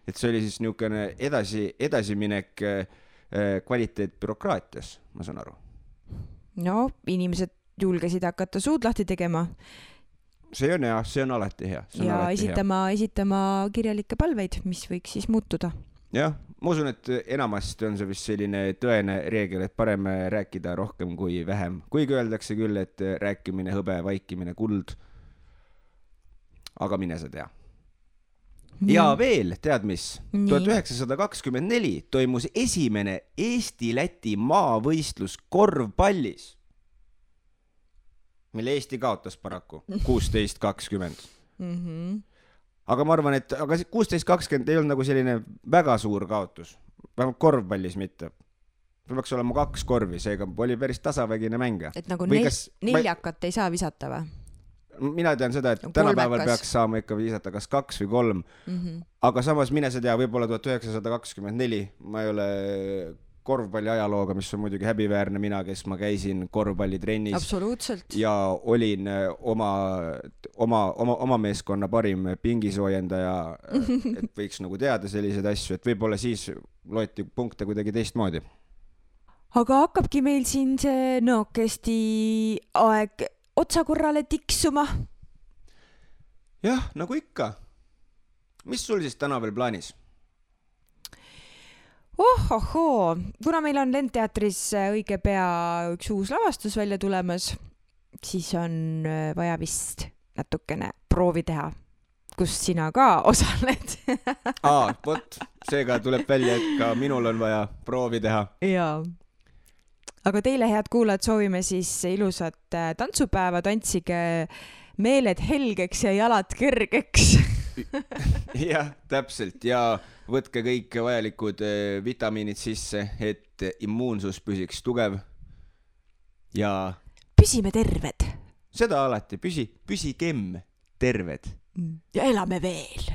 Et see oli siis niisugune edasiminek kvaliteet bürokraatias, ma saan aru. No, inimesed julgesid hakata suud lahti tegema. See on hea, see on alati hea. Ja esitama kirjalikke palveid, mis võiks siis muutuda. Jah, ma usun, et enamasti on see vist selline tõene reegel, et parem rääkida rohkem kui vähem. Kuigi öeldakse küll, et rääkimine hõbe, vaikimine kuld. Aga mine sa tea. Ja veel, tead mis? 1924 toimus esimene Eesti-Läti maavõistlus korvpallis, mille Eesti kaotas paraku 16-20. Aga ma arvan, et 16-20 ei olnud nagu selline väga suur kaotus. Vähemalt korvpallis mitte. Peaks olema 2 korvi, seega oli päris tasavägine mänge. Et nagu neljakat ei saa visata või? Mina tean seda, et tänapäeval peaks saama ikka visata kas 2 või 3. Aga samas mine sa tea, võib-olla 1924, ma ei ole korvpalli ajalooga, mis on muidugi häbiväärne mina, kes ma käisin korvpallitrennis. Absoluutselt. Ja olin oma meeskonna parim pingisoojendaja, et võiks nagu teada selliseid asju, et võib-olla siis loeti punkte kuidagi teistmoodi. Aga hakkabki meil siin see nookesti aeg otsakorrale tiksuma. Jah, nagu ikka. Mis sul siis täna veel plaanis? Ohohoo, kuna meil on Lendteatris õige pea üks uus lavastus välja tulemas, siis on vaja vist natukene proovi teha, kus sina ka osaled. Vot, seega tuleb välja, et ka minul on vaja proovi teha. Jaa. Aga teile, head kuulajad, soovime siis ilusat tantsupäeva, tantsige meeled helgeks ja jalad kergeks. Jah, täpselt. Ja võtke kõik vajalikud vitamiinid sisse, et immuunsus püsiks tugev. Ja püsime terved. Seda alati, püsigem terved. Ja elame veel.